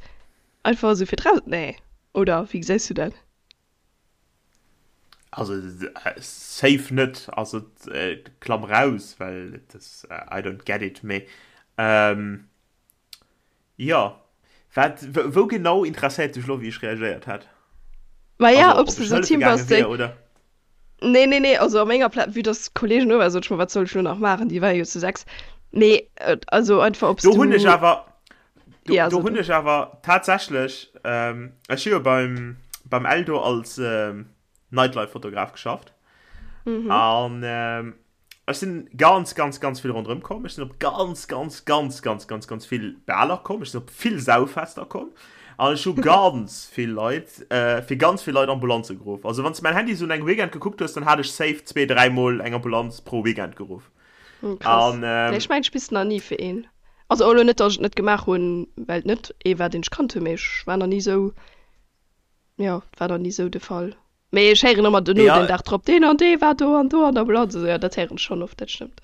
einfach esou fir draus, nee oder wéi gesäis du dat? Also safe net, also klamm raus, well et ass, I don't get it, mee jo, wat, wou genau interesséiert dech elo wéi ech reagéiert hätt? Maja, ob s de esou Team bass déi. Nee, nee, nee, also a menger Pla vue dass d'Kollegen do waren, sot ech mer, wat soll ech elo nach maachen, déi ware jo zu 6. Mee also einfach, ob s du. Do hunn ech awer, do, ja, do hunn ech awer tatsächlech, ähm, ech hu jo beim, beim Eldo als ähm, Nightlife-Fotograf geschafft. Mhm. An ähm, Ech sinn ganz, ganz, ganz vill ronderëm komm. Ech sinn op ganz, ganz, ganz, ganz, ganz, ganz vill Baler komm. Ech sinn op vill Sauffester komm. An ech hu ganz vill Leit, äh, fir ganz vill Leit Ambulanze geruff. Also wann s de mäin Handy sou un engem Weekend gekuckt hues, dann hat ech safe zwee, dräimol eng Ambulanz pro Weekend geruff. Hm, krass. An, ähm, Nee, ech mengen, ech bis nach ni fir een. Also och elo net, datt ech et net gemaach hunn, well et net ee war, deen ech kannt hunn, mee ech war nach ni sou, jo, et war nach ni sou de Fall. Mee ech héieren ëmmer dono, den Dag drop, deen an dee war do an do an der Ambulanz. Also jo, dat héieren ech schonn oft, dat stëmmt.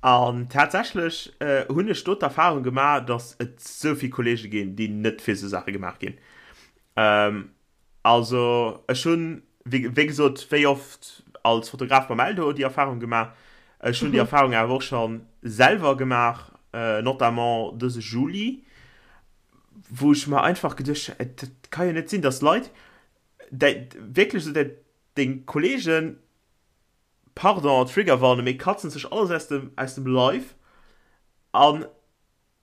An tatsächlech hunn ech do d'Erfahrung gemaach, datt et esou vill Kollege ginn, déi net fir esou Saache gemaach ginn. Also ech hunn, wéi gesot, wéi oft als Fotograf beim Eldo déi Erfahrung gemaach. Ech hunn déi Erfahrung awer och scho selwer gemaach, notamment dëse Juli. wou ech mer einfach geduecht hunn, dat ka jo net sinn, dass Leit däi, wierklech esou däi, deng Kollegen, pardon, Triggerwarnung, mee katzen sech alles aus dem, aus dem Leif an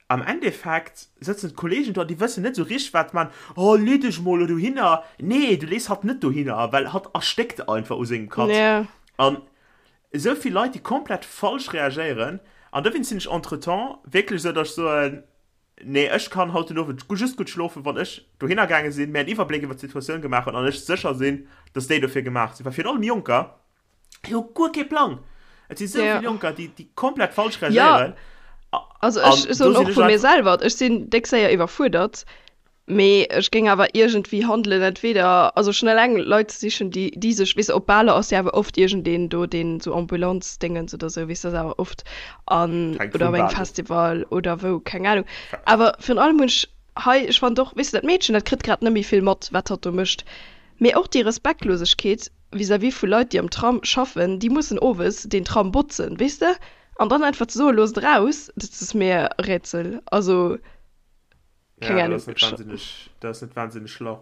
am Endeffekt sëtzen d'Kollegen do an déi wëssen net esou richteg wat man, oh lee dech mol elo dohinner, nee du lees hatt net dohinner, well hatt erstéckt einfach u sengem Katz. Yeah. An esou vill Leit déi komplett falsch reagéieren an dowéinst sinn ech entretemps wierklech esou, dass ech soen, Nee, ech kann haut den Owend just gutt schlofen, wann ech dohinner gaange sinn, mir en Iwwerbléck iwwer d'Situatioun gemaach hunn an ech sécher sinn, dass déi dofir gemaach sinn. Well virun allem Jonker, déi hu guer kee Plang. Et si sou vill Jonker, déi, déi komplett falsch reagéieren. Jo, also ech soen och vu mir selwer, ech sinn déck séier iwwerfuerdert. Mee ech géing awer iergendwéi handelen, entweder, also schonn eleng Leit ze sichen, déi, déi sech, weess de, op Baler ass jo awer oft iergendeen do, deen esou Ambulanzdéngens oder esou, weess de, ass awer oft an, Hänkt oder vum op engem Bal of. Festival oder wou, keng Ahnung. Awer virun allem hunn ech hei, ech fannen och, weess de, dat Meedchen, dat kritt grad net méi vill mat, wat hatt do mécht, mee och déi Respektlosegkeet vis-à-vis vu Leit, déi am Tram schaffen, déi mussen owes deen Tram botzen, weess de, an dann einfach ze soen, loosst eraus, dat ass mir e Rätsel, also. Keng Ahnung. Ja, dat ass net wahnsinneg, dat ass net wahnsinneg schlau.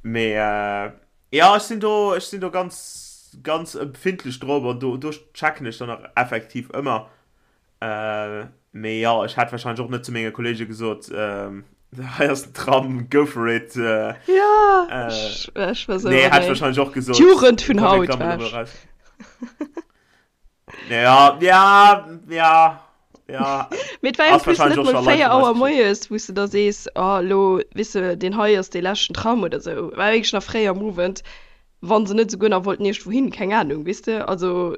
Mee äh, ja, ech sinn do, ech sinn do ganz, ganz empfindlech drop an do, do checken ech dann och effektiv ëmmer. Äh, mee ja, ech hätt wahrscheinlech och net zu menge Kollege gesot, ähm, hei ass den Tram, go for it. Äh, ja, äh, ech, ech war so, nee, hätt nee. wahrscheinlech och gesot, D'Jugend vun komm, mir haut, klammen elo war mol raus. Ja, ja, ja, ja. Mee et war en Ass plus net wahrscheinlech och mol scho Leit 4 vun eis Auer geschitt. moies, wou s de da sees, oh elo, weess de, deen hei ass dee leschten Tram oder sou. War wierklech nach fréi am Owend, wa se net esouguer nach wollten iergendwou hin, keng Ahnung, weess de, also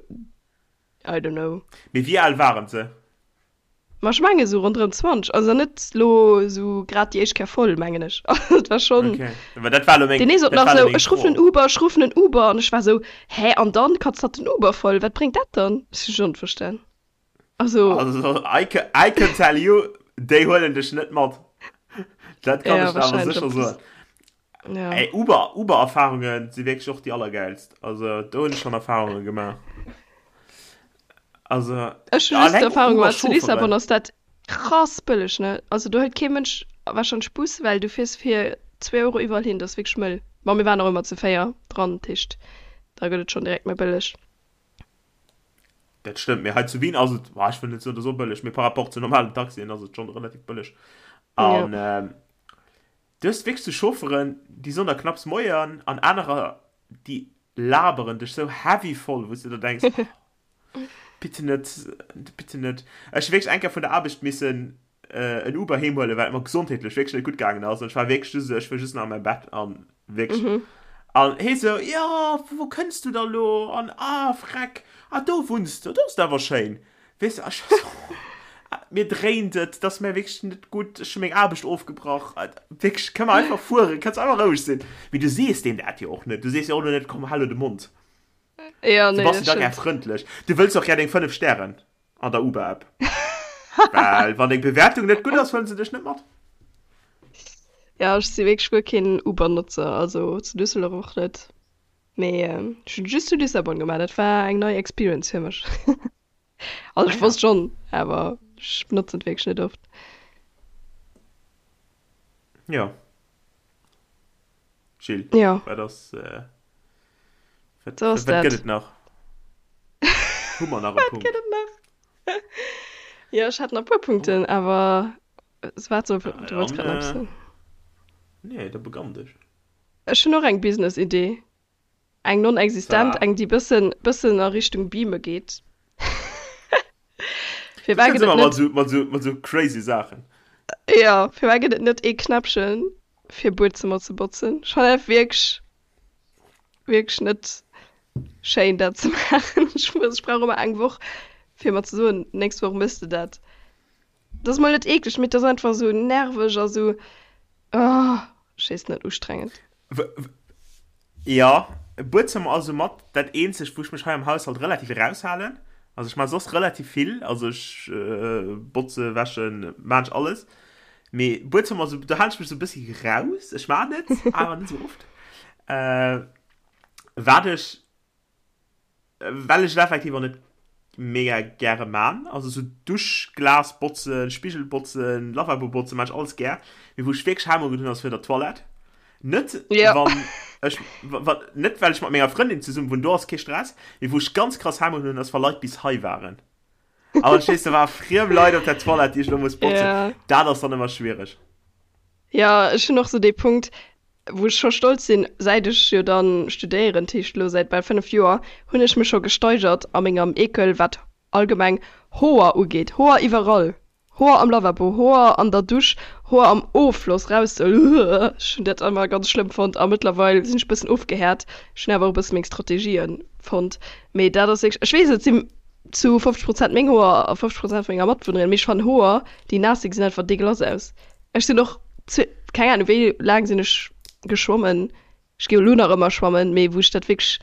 I don't know. Mee wéi al waren se? Ma ech mengen esou ronderëm 20, also net lo esou grad déi éischt Kéier voll, mengen ech. Also et war schonn. Okay, well dat war elo meng, Deen ee sot dat nach war elo esou, meng ech ruffen Fro. en Uber, ech ruffen en Uber an ech war esou, hä, an dann katzt hatt den Uber voll, wat bréngt dat dann? Ech hu schonn net verstan. Also. Also I can, I can tell you, déi huelen dech net mat. Dat kann Ja, ech der awer wahrscheinlech sécher en plus. soen. Ja. Ey, Uber, Uber-Erfahrungen si wierklech och déi allergäilst. Also do hunn ech schonn Erfahrunge gemaach. Also Ech hu just alleng d'Erfahrung gemaach, zu Lissabon Uber-Chaufferen. ass dat krass bëlleg, ne? Also do hëlt kee Mënsch warscheinlech Bus, well du fiers fir zwee Euro iwwerall hin, dat ass wierklech mëll. Bon, mir waren och ëmmer zu 4 dran, dat heescht da gëtt et schonn direkt méi bëlleg. Dat stëmmt, mee hei zu Wien ass et, boah, ech wëll net soen, et ass och bëlleg, mee par rapport zu normalen Taxien ass et schonn relativ bëlleg. Ja. An ähm, Du hues wierklech sou Chaufferen, déi soen der knapps Moien an anerer, déi laberen dech sou heavy voll, wou s de der denks, oh, bitte net, bitte net. Ech hu wierklech eng Kéier vun der Aarbecht missen en Uber heem huelen, well et mer gesondheetlech wierklech net gutt gaangen ass an ech war wierklech just esou, ech wëll just nach a mäi Bett an wierklech. An hee sou, jo, vu wou kënns du da lo an ah, freck, ah do wunns de, do ass et awer schéin. Weess de, ech war sou, mir dréint et, et ass mir wierklech net gutt, ech hu meng Aarbecht ofgebrach, wierklech, kënne mer einfach fueren, kanns einfach roueg sinn. Mee du sees deem dat jo och net, du sees jo och elo net, komm, hal elo de Mond. Ja, Du nee, bass dat jo da gär stimmt. frëndlech, du wëlls och gär deng 5 Stären an der Uber-App, well wann deng Bewäertung net gutt ass, huelen se dech net mat. Ja, ech si wierklech guer keen Uber-Notzer, also zu Düsseldorf och net. Mee ech hunn just zu Lissabon gemaach, dat war eng nei Experience fir mech. Also Ah ech ja. wosst schonn, awer ech benotzen et wierklech net oft. Jo. Jill, Ja. wat ass, äh, wat, So ass wat dat. gëtt et nach? Hu mer nach e Wat Punkt? gëtt et nach? Jo, ech hat nach e puer Punkten, awer wat soll, Ah, du wollts dann, grad nach eppes äh, soen. nee, da begann dech. Ech hunn och eng Business-Idee. Eng non-existent, Zwar. eng déi bëssen, bëssen a Richtung Beame geet. Du Firwat kënns gëtt et ëmmer mat net, esou, mat esou, mat esou crazy Saachen. jo, firwat gëtt et net ee Knäppchen fir Buedzëmmer ze botzen? Ech fannen dat wierklech, wierklech net schéin dat ze maachen. Ech muss, ech brauch ëmmer eng Woch fir mer ze soen, nächst Woch méchs de dat. Dat ass mol net eekleg, mee et ass einfach esou nerveg a sou, oh, ech weess net, ustrengend. Jo, Buedzëmmer ass soumat dat eenzegt, wou ech mech hei am Haushalt relativ eraushalen. Also ech maache soss relativ vill, also ech botze, wäschen, maan ech alles. Mee Buedzëmmer, sou, do halen ech mech sou e bëssi raus. Ech maan et, awer net sou oft. Wat ech Well ech et effektiv och net mega gäre man. Also sou Duschglas botzen, Spigel botzen, Lavabo botzen, man ech alles gär. Mee wou ech wierklech Hemmungen hunn ass fir der Toilette. Net Ja. wann ech wa net well ech mat menger Frëndin zesummen wunn, do ass kee Stress. Mee wou ech ganz krass Hemmungen hunn ass wa Leit bis hei waren. An dann stees de war friem Leit op der Toilette déi ech lo muss botzen. Ja. Dat ass dann ëmmer schwiereg. Ja, ech hunn och sou dee Punkt, wou ech scho stolz sinn, säit ech jo dann studéieren, dat heescht elo säit bal 5 Joer, hunn ech mech scho gesteigert a mengem Ekel, wat allgemeng Hoer ugeet. Hoer iwwerall, Hoer am Lavabo, Hoer an der Dusch, Hoer am Offloss raus, ech hunn dat ëmmer ganz schlëmm fonnt a mëttlerweil sinn ech e bëssen ofgehäert. Ech hunn awer och e bësse meng Strategië fonnt, mee dat ass wierklech, ech weess et si zu 50 Prozent meng Hoer a 50 Prozent vu menger Matbewunnerin, mee ech fannen Hoer déi naass sinn, gesinn einfach deegelass aus. Ech sinn och keng Ahnung wéi laang sinn ech geschwommen. Ech gi elo nach ëmmer schwammen, mee wou ech dat wierklech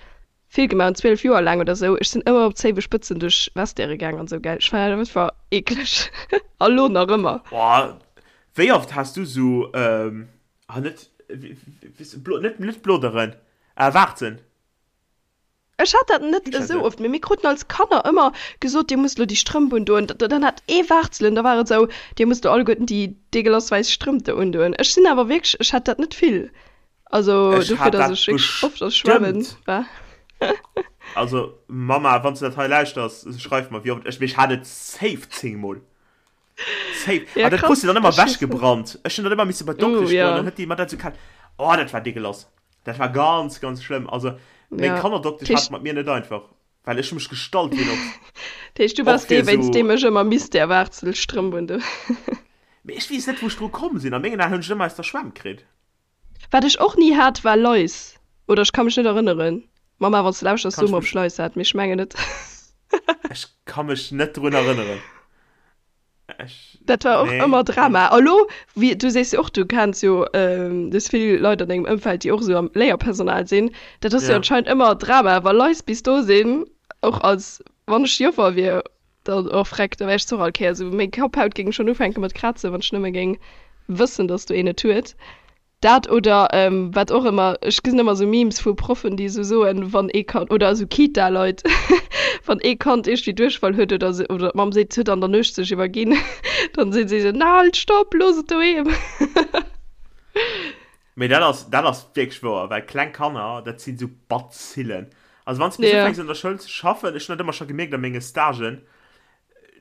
vill gemaach hunn, 12 Joer laang oder sou, ech sinn ëmmer op Zéiwespëtzen duerch Vestiaire gaang an sou, gell. Ech fannen dat einfach eekleg a lo nach ëmmer. Boah, wéi oft has du sou, ah net, net, net Bloderen, ah Waarzen? Ech hat dat net esou oft, mee mir kruten als Kanner ëmmer gesot, dir musst elo déi Strëmp undoen. Dann hat ee Waarzelen, da war et esou, dir musst elo alleguerten déi deegelass wäiss Strëmp do undoen. Ech sinn awer wierklech, ech hat dat net vill. Also Ech dofir, hat datt dat ech wierklech oft a Schwämmen bestëmmt. war. Also Mama, wann s du dat hei lauschters, schreif mer, wéi oft ech, mee ech hat et safe 10 mol. Safe. Ja, An dat krass. krus du dann ëmmer Ech weess net. ewechgebrannt. Ech hunn dat ëmmer misse bei Uh, d'Doktesch goen, ja. dann huet déi mer dat esou kal. Oh, dat war deegelass. Dat war ganz, ganz schlëmm. Also, meng Ja. Kannerdoktesch hat Tisch. et mat mir net einfach, well ech hu mech gestallt wéi en Ochs. Dat heescht, du Och waars fir dee, wéinst esou. deem ech ëmmer misst där Waarzelstrëmp undoen. Mee ech weess net, wou ech dru komm sinn. A mengen Aen hunn ech et ëmmer aus der Schwämm kritt. Wat ech och ni hat, war Lais. Oder ech ka mech net erënneren. Mama, wann s de lauschters, Kann so ech mer, ob mech. ech Lais hat, mee ech mengen net. Ech ka mech net drun erënneren. Ech, Dat war och nee, ëmmer nee. Drama. A lo, wéi, du sees jo och, du kenns jo, du hues vill Leit an dengem Ëmfeld, déi och esou am Léierpersonal sinn. Dat ass jo Ja. anscheinend ëmmer Drama, wa Lais bis do sinn, och als, wann ech Joffer wier, dann, oh freck, da wär ech och all Kéier esou, meng Kapphaut géing schonn ufänke mat krazen, wann ech nëmme géing wëssen, dass do een et huet. Dat oder wat och ëmmer, ech gesinn ëmmer esou Memes vu Proffen, déi esou soen, wann ee Kand, oder esou Kita-Leit, wann ee Kand iergendwéi Duerchfall huet oder se, oder d'Mamm seet, et huet an der Nuecht sech iwwerginn, dann sinn si esou, Na halt, stopp, looss et doheem! Mee dat ass, dat ass wierklech wouer, well kleng Kanner, dat sinn esou Bazillen. Also wann s de bis Ja. ufänks an der Schoul ze schaffen, ech hunn dat ëmmer scho gemierkt a menge Stagen,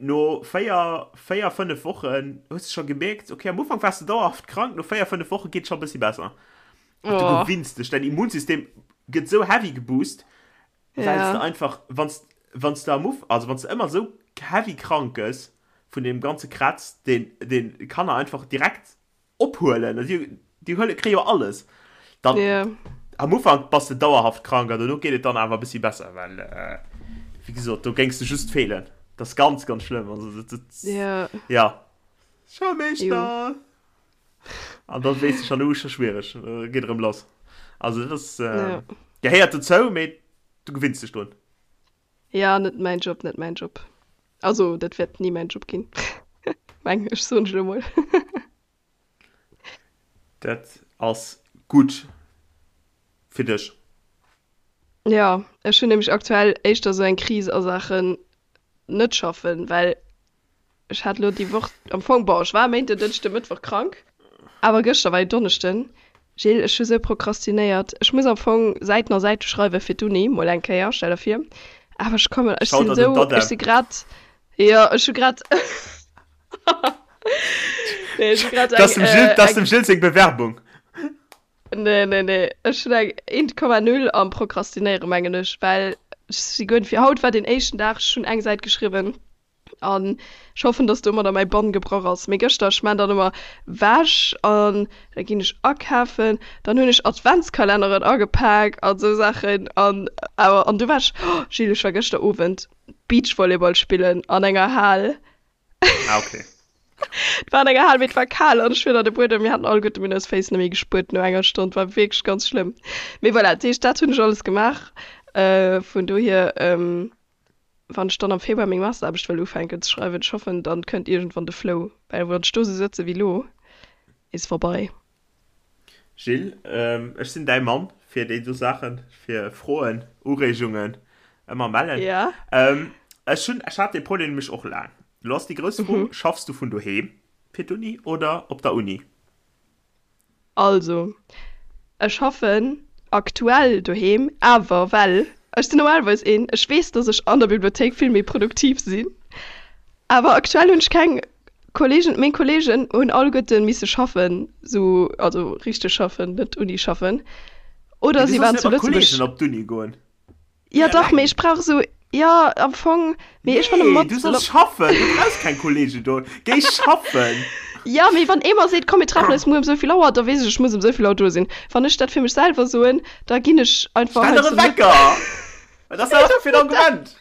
No 4, 4, 5 Wochen hues de scho gemierkt, okay, am Ufank waars de dauerhaft krank, no 4, 5 Woche geet scho e bëssi besser. Du oh. gewinns dech, dein Immunsystem gëtt sou heavy geboost, well ja. du einfach, wanns, wanns du am Uf, also wanns du ëmmer sou heavy krank gëss vun deem ganze Kratz, deen, deen Kanner einfach direkt ophuelen, déi, déi huele, kréie jo alles. Dann, yeah. am Ufank bass de dauerhaft krank an dono geet et dann awer e bëssi besser, well, äh, wéi gesot, do géings de just feelen. Dat ass ganz, ganz schlëmm. Also, dat, dat, yeah. ja. Schoulmeeschter! An dann weess de schon, uh, scho schwiereg, äh, geet erëm lass. Also, dat ass, äh, yeah. gehéiert dozou, mee du gewinns dech drun. Ja, net mäin Job, net mäin Job. Also, dat wäert ni mäin Job ginn. Meng ech, soen ech elo mol. Dat ass gutt fir dech. Ja, ech hunn nämlech aktuell éischter esou eng Kris a Saachen net schaffen, well Ech hat lo déi Woch am Fong, bon, ech war Méinden, Dënschden, Mëttwoch krank, awer gëschter war jo Donneschden. Jill, ech hu sou prokrastinéiert. Ech muss am Fong Säiten a Säite schreiwe fir d'Uni, mol eng Kéier, stell der vir. Awer ech kommen, ech sinn sou, ech si grad, jo, ech hu grad, nee, ech hu grad eng, dat ass dem Jill seng Bewerbung. Nee, nee, nee, ech hunn eng 1,0 am Prokrastinéieren, mengen ech, well ech si guer net fir. Haut war deen éischten Dag, ech hunn eng Säit geschriwwen. An ech hoffen, dass domadder mäi Bann gebrach ass. Mee gëschter, ech maan dann ëmmer Wäsch an da ginn ech akafen, dann hunn ech Adventskalenneren agepak an sou Saachen an awer an du war ech, oh Gilles, ech war gëschter Owend Beachvolleyball spillen an enger Hal. Ah okay. Et war an enger Hal, mee et war kal an ech hunn an de Buedem, mir haten alleguerte mir hunn eis Féiss net méi gespuert no enger Stonn, war wierklech ganz schlëmm. Mee voilà, dat heescht, dat hunn ech alles gemaach. Vun dohier. Wann ech dann am Februar meng Masteraarbecht wëll ufänken ze schreiwen, ech hoffen dann kënnt iergendwann de Flow, well wann ech do sou sëtze wéi lo, is vorbei. Gilles, ech sinn däi Mann fir déi do Saachen, fir Froen, Ureegungen, ëmmer mellen. Ja. Ech hunn, ech hat dee Problem nämlech och laang. Lo ass déi grouss Fro, Schaffs du vun doheem fir d'Uni oder op der Uni? Also, ech schaffen aktuell doheem, awer well ech sinn normalerweis een, ech weess, dass ech an der Bibliothéik vill méi produktiv sinn, awer aktuell hunn ech keng Kollegen, meng Kollegen hunn alleguerte misse schaffen, sou, also richteg schaffen, net Uni schaffen, oder Mee du si solls waren net zu mat Lëtzebuerg. Kollegen op d'Uni goen. Ja dach, mee ech brauch esou, jo am Fong, mee ech fannen Nee, mat. du solls schaffen, du brauchs keng Kollegen do, géi schaffen! Ja, mee wann ee mer seet, komm mir treffen eis muer ëm souvill Auer, da weess ech, ech muss ëm souvill Auer do sinn. Wann ech dat fir mech selwer soen, da ginn ech einfach Stell der heiansdo e net. Wecker! Wat ass dat einfach fir en Argument?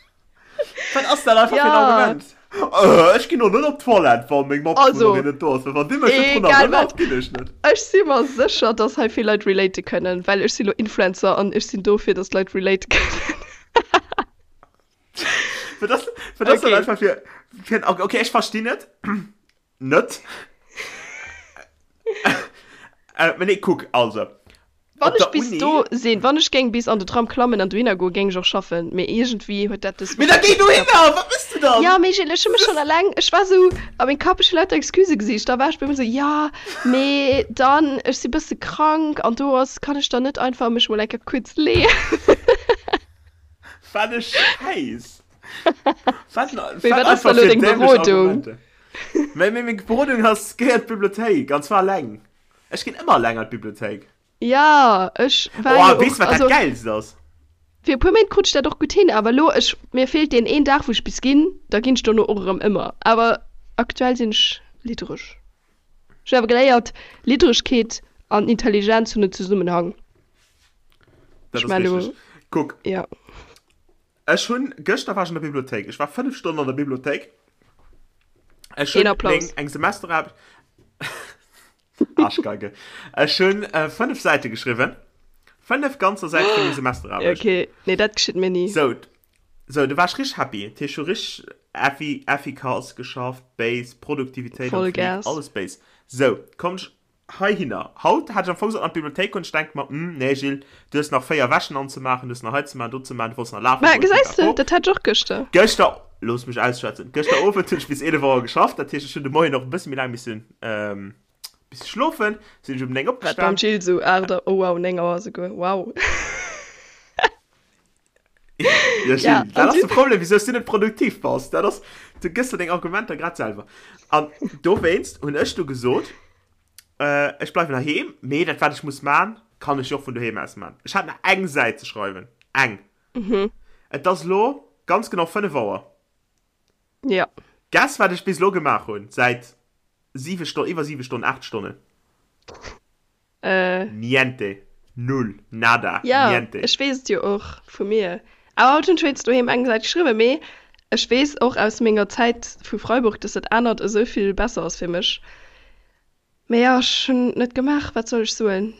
Wat ass dat einfach fir en Ja. Argument? Äh, ech ginn och net op d'Toilette, wa meng Also, Matbewunnerin net do ass, well wann déi mech net drun egal erënnert, wat. ginn ech net. Ech si mer sécher, dass hei vill Leit relate kënnen, well ech si lo Influencer an ech sinn do fir dass d'Leit relate kënnen. Wat ass, wat ass dat Okay. einfach fir, fir en Arg-, okay, ech verstinn et net. Äh, mee nee, kuck, also, Wann Op ech der bis Uni? do sinn, wann ech géing bis an de Tram klammen an dohinner goen, géing ech och schaffen, mee iergendwéi huet dat dës Mee da Woch géi net geklappt. dohinner! Wat mëss du dann? Ja, mee Gilles, ech hu mech schonn eleng, ech war sou a mengem Kapp, ech hu lauter Excusë gesicht, da war ech bei mir sou, jo, mee dann, ech si bësse krank an do ass, kann ech dann net einfach mech mol eng Kéier kuerz leeën? Wat e Schäiss! Wat, Mee wat wat ass da einfach lo fir deng dämlech Berodung? Argumenter. Mee, mee meng Berodung ass, géi an d'Bibliothéik, an zwar eleng. Ech ginn ëmmer eleng an d'Bibliothéik. Ja, ech war Oh, jo weess och, wat dat also Gäilst ass? fir e puer Méint krut ech dat och gutt hin, awer elo, ech, mir feelt deen een Dag, wou ech bis ginn, da ginn ech dono och erëm ëmmer. Awer aktuell sinn ech liddereg. Ech hunn awer geléiert, Lidderegkeet an Intelligenz hunn en Zesummenhang. Dat Ech ass man elo, richteg. Kuck, ja. ech hunn, gëschter war ech an der Bibliothéik. Ech war 5 Stonnen an der Bibliothéik. Ech Een hunn Applaus. meng, eng Semesteraarbecht, Arschgeige. Ech hunn äh, 5 Säite geschriwwen. 5 ganzer Säite fir meng Semesteraarbecht. Okay, nee, dat geschitt mir ni. So, so, du war ech richteg happy. Dat heescht, ech hu richteg effi, efficace geschafft, Base, Produktivitéit am Fleek, Vollgas. alles Base. So, komm ech heihinner. Haut hat ech am Fong sollen an d'Bibliothéik goen. Ech denke mer, hm, nee Gilles, du hues nach 4 Wäschen anzemaachen, du hues nach hei ze maachen, do ze maachen, du wollts nach lafen Ma goen, gesäis de, pipapo. dat hat ech och gëschter. Gëschter, looss mech ausschwätzen, gëschter Owend hunn ech bis 11 Auer geschafft, dat heescht, ech hunn de Moien och e bësse méi laang missen, misse schlofen, sinn ech um 9 Wat beim opgestan. Gilles sou 8 Auer, oh wow, 9 Auer souguer, wow. Ja, Gilles, ja, dat ass de Problem, wieso du net produktiv bass. Dat ass, du gëss der deng Argumenter grad selwer. An dowéinst hunn ech du gesot, äh, ech bleiwen heiheem, mee dat wat ech muss man, kann ech jo och vun doheem aus man. Ech hat nach eng Säit ze schreiwen. Eng. Mhm. Et ass lo ganz genau 5 Auer. Ja. Guess wat ech bis lo gemaach hunn, säit 7 Stonnen, iwwer 7 Stonnen, 8 Stonnen. Äh. Niente. Null. Nada. Ja, Niente. ech weess et jo och vu mir. Awer haut hunn ech wéinst doheem eng Säit geschriwwen, mee ech weess och aus menger Zäit vu Freiburg, dass dat anert esou vill besser ass fir mech. Mee jo, ech hunn et net gemaach, wat soll ech soen?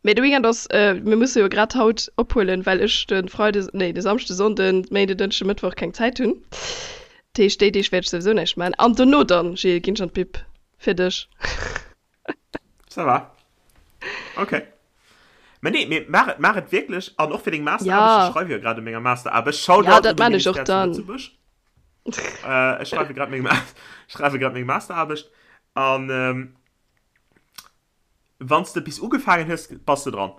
Mee de Weekend ass, mir musse jo grad haut ophuelen, well ech de Freide, nee de Samschde, Sonnden, Méinde, Dënschde, Mëttwoch keng Zäit hunn. Dat heescht, déi Deeg wäert ech souwisou näischt maachen. An dono dann, Gilles, ginn ech an d'Bib. Fir dech. Ça va. Okay. Mä nee, mee maach et, maach et wierklech. An och fir deng Masteraarbecht, Ja. ech schreiwe jo grad u menger Masteraarbecht. Shoutout Ja, un dat de maan ech och Ministère zu dann. Lëtzebuerg. Äh, ech schreiwe grad meng, schreiwe grad meng Masteraarbecht. An ähm, wann s de bis ugefaangen hues, bass de dran.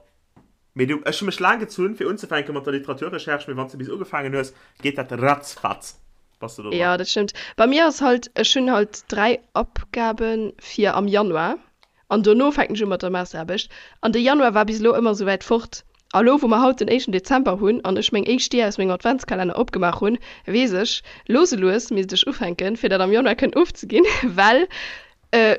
Mee du, ech hu mech laang gezunn, fir unzefänke mat der Literaturrecherche, mee wann s de bis ugefaangen hues, geet dat ratzfatz, bass de do dran. Ja, dat stëmmt. Bei mir ass halt, ech hunn halt 3 Abgabe fir am Januar an dono fänken ech u mat der Masteraarbecht. An de Januar war bis elo ëmmer esou wäit fort. A lo, wou mer haut den éischten Dezember hunn an ech meng éischt Dier aus mengem Adventskalenner opgemaach hunn, weess ech, lues e lues misst ech ufänken, fir dat am Januar kënnen ofzeginn, well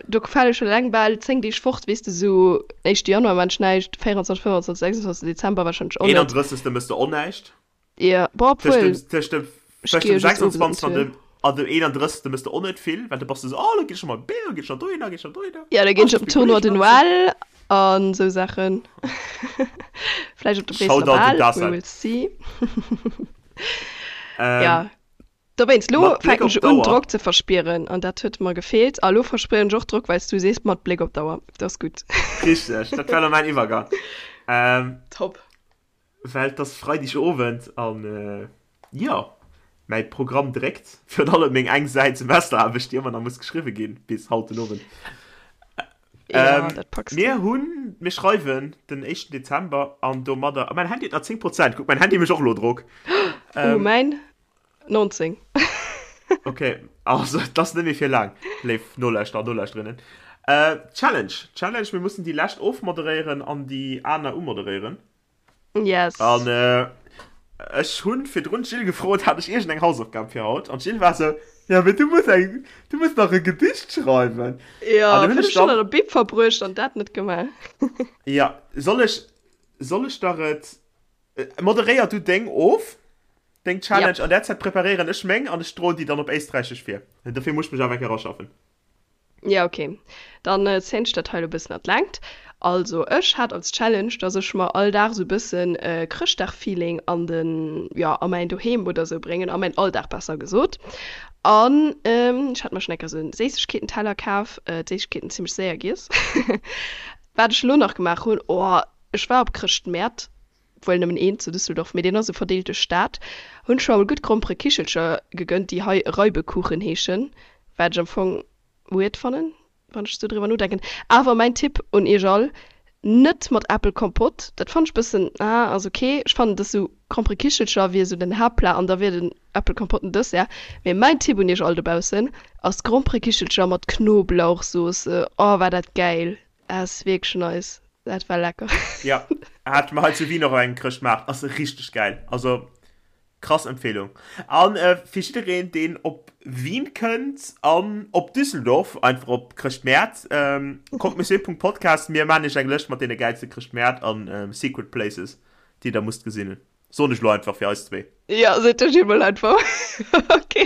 do fale scho eleng bal 10 Deeg fort, weess de, sou éischte Januar maan ech näischt, 24, 25, 26 Dezember warscheinlech och net. 31. Mëss de och näischt. Jo, bon, Tëscht obwuel, dem, tëscht dem, ech tëscht gi dem jo just owes an 26. an d'Tour. dem, an dem 31. Mëss de och net vill, well du bass du sou, oh, lo ginn ech mol Bier, ginn ech nach dohinner, ginn ech nach dohinner. Ja, da Oh, ginn ech ech op muss den meng Tournoi de Kolleegen anziehen. Noël an sou Saachen. Vläicht op de Bréisseler Shoutout un Bal, we d'Assel. will see. Ähm, Ja, dowéinst, lo mat Bléck fänken op ech un, d'Auer. Drock ze verspieren an dat huet mer gefeelt. A lo verspieren ech och Drock, well s du sees, mat Bléck op d'Auer. Dat ass gutt. Richteg, dat war lo mäin Iwwergang. Ähm, Top. Well et ass Freideg Owend an jo, mäi Programm dréckt. Virun allem meng eng Säit Semesteraarbecht, déi ëmmer nach muss geschriwwe ginn bis haut den Owend. Ja, dat packs du. Mir hunn, mir schreiwen den éischten Dezember an domadder, a mäin Handy huet nach 10 Prozent, kuck, mäin Handy mécht och elo Drock. Oh, mäin 19. Ok, also et ass net méi fir laang, léif Nolauschterer an Nolauschterinnen. Challenge, Challenge, mir mussen déi lescht ofmoderéieren an déi aner umoderéieren. Yes. An äh, ech hunn virdrun d'Jill gefrot, hat ech iergendeng Hausaufgab fir haut? An d'Jill war sou, ja, mee du muss eng, du muss nach e Gedicht schreiwen. Ja, An du hunn 5 ech Stonnen dann, an der Bib verbruecht an dat net gemaach. ja, soll ech, soll ech der et, moderéier du deng of, deng Challenge, Yep. an där Zäit preparéieren ech meng an ech droen déi dann op Éisträichesch vir. Dofir muss ech mech awer eng Kéier eraschaffen. Ja ok, dann zéien ech dat hei elo bëssen an d'Längt. Also ech hat als Challenge, dass ech mer all Dag sou bëssen Chrëschtdag-Feeling an den, jo a mäin Doheem oder sou bréngen, a mäin Alldag besser gesot. An ech hat mer schonn eng Kéier sou en Séissegkeetenteller kaf, d'Séissegkeeten zimmlech séier giess. Wat ech elo nach gemaach hunn, oh ech war op Chrëschtmäert, wuel nëmmen een zu Düsseldorf, mee deen ass esou verdeelt duerch d'Stad, hunn ech mer emol gutt Gromperekichelcher gegönnt, déi hei Reibekuchen heeschen, wat ech am Fong weird fannen, wann ech esou driwwer nodenken. Awer mäin Tipp un iech all, net mat Äppelkompott, dat fannen ech bëssen, ah, ass ok. Ech fannen, dass esou Gromperekichelcher wier esou den Haaptplat an da wier den Äppelkompott den Dessert. Mee mäin Tipp un iech all dobaussen ass Gromperekichelcher mat Knoblauchsauce, oh war dat gäil, ass wierklech nice. Dat war lecker. Ja, hat mer hei zu Wien och op engem Chrëschtmaart. Ass richteg gäil. Also krass Empfehlung. An äh, fir jiddereen, deen op Wien kënnt an op Düsseldorf, einfach op Chrëschtmäert, ähm, kommt monsieur.podcast, mir maan iech eng Lëscht mat deene gäilste Chrëschtmäert an ähm, Secret Places, déi der musst gesinn hunn. Soen ech lo einfach fir eis zwee. Ja, seet de Gilles mol einfach. Ok.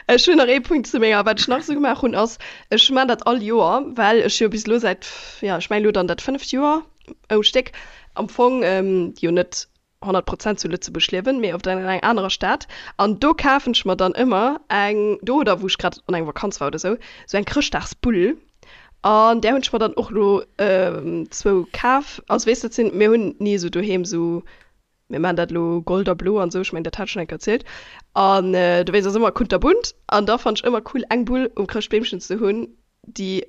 Ech hunn nach ee Punkt zu menger, wat ech nach esou gemaach hunn, ass, ech maan dat all Joer, well ech jo bis elo säit, ja, ech mengen elo dann dat fënneft Joer um Stéck am Fong jo net 100 Prozent zu Lëtzebuerg liewen, mee oft an enger anerer Stad. An do kafen ech mer dann ëmmer eng, do oder wou ech grad an enger Vakanz war oder esou, esou eng Chrëschtdagsbull. An där hunn ech mer dann och elo zwou kaf. Also weess dat sinn, mir hunn ni esou doheem esou, mir maachen dat elo Gold a Blo an esou, ech mengen dat hat ech schonn eng Kéier erzielt. An dowéinst ass ëmmer kunterbunt. An da fannen ech ëmmer cool eng Bull um Chrëschtbeemchen ze hunn, déi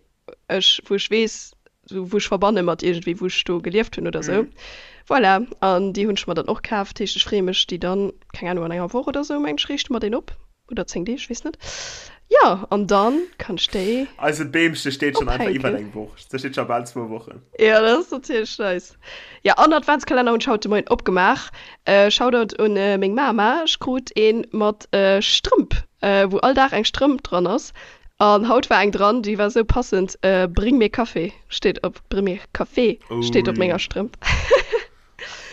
ech, wou ech weess. Sou wou ech verbanne mat iergendwéi wou ech do gelieft hunn oder sou. Voilà, an déi hunn ech mer dann och kaf. Dat heescht ech freeë mech déi dann, keng Ahnung, an enger Woch oder sou mengen ech riichte mer deen op oder 10 Deeg, weess net. Jo, an dann kann ech déi Eise Beemche steet schonn einfach iwwert eng Woch, se steet scho bal zwou Wochen. Jo, dat ass natierlech nice. Jo, an Adventskalenner hunn ech haut de Moien opgemaach. Shoutout un meng Mama, ech krut een mat Strëmp, wou all Dag eng Strëmp dran ass. An haut war eng dran, déi war sou passend, Bring mir Kaffee steet op, Bring mir Café steet op menger Strëmp.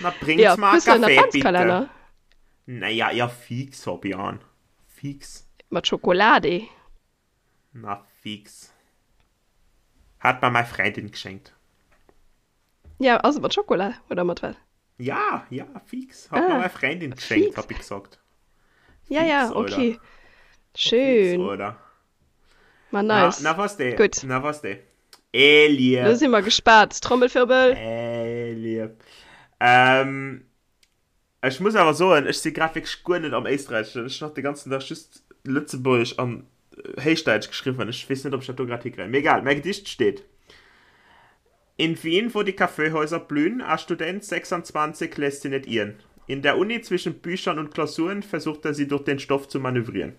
Na, bring's Ja, mal hues du en Kaffee, bitte. Adventskalenner? Naja, ja fix, Fabian. Fix. Mat Schokolade. Na fix. Hat mer mei Freundin geschenkt. Ja, ass et mat Schokola oder mat wat? Ja, ja, fix. Hat ah, mir mei Freundin geschenkt, hab ich gesagt. Ja, fix, ja, okay. Oder. Schön. Fix, oder? Ma nice. Na, na was de. Gut. Na was de. Eh, lieb. Lo si mer gespaart. Trommelwirbel. Eh, lieb. Ähm, Ech muss awer soen, ech si grad wierklech guer net am Éisträicheschen. Ech hunn nach de ganzen Dag just Lëtzebuergesch an Héichdäitsch geschriwwen. Ech weess net, ob ech dat do grad hikréien. Mee egal, mäi Gedicht steet, In Wien, wo die Kaffeehäuser blühen, a Student 26 lässt sie net irren. In der Uni zwischen Büchern und Klausuren versucht er sie durch den Stoff zu manövrieren.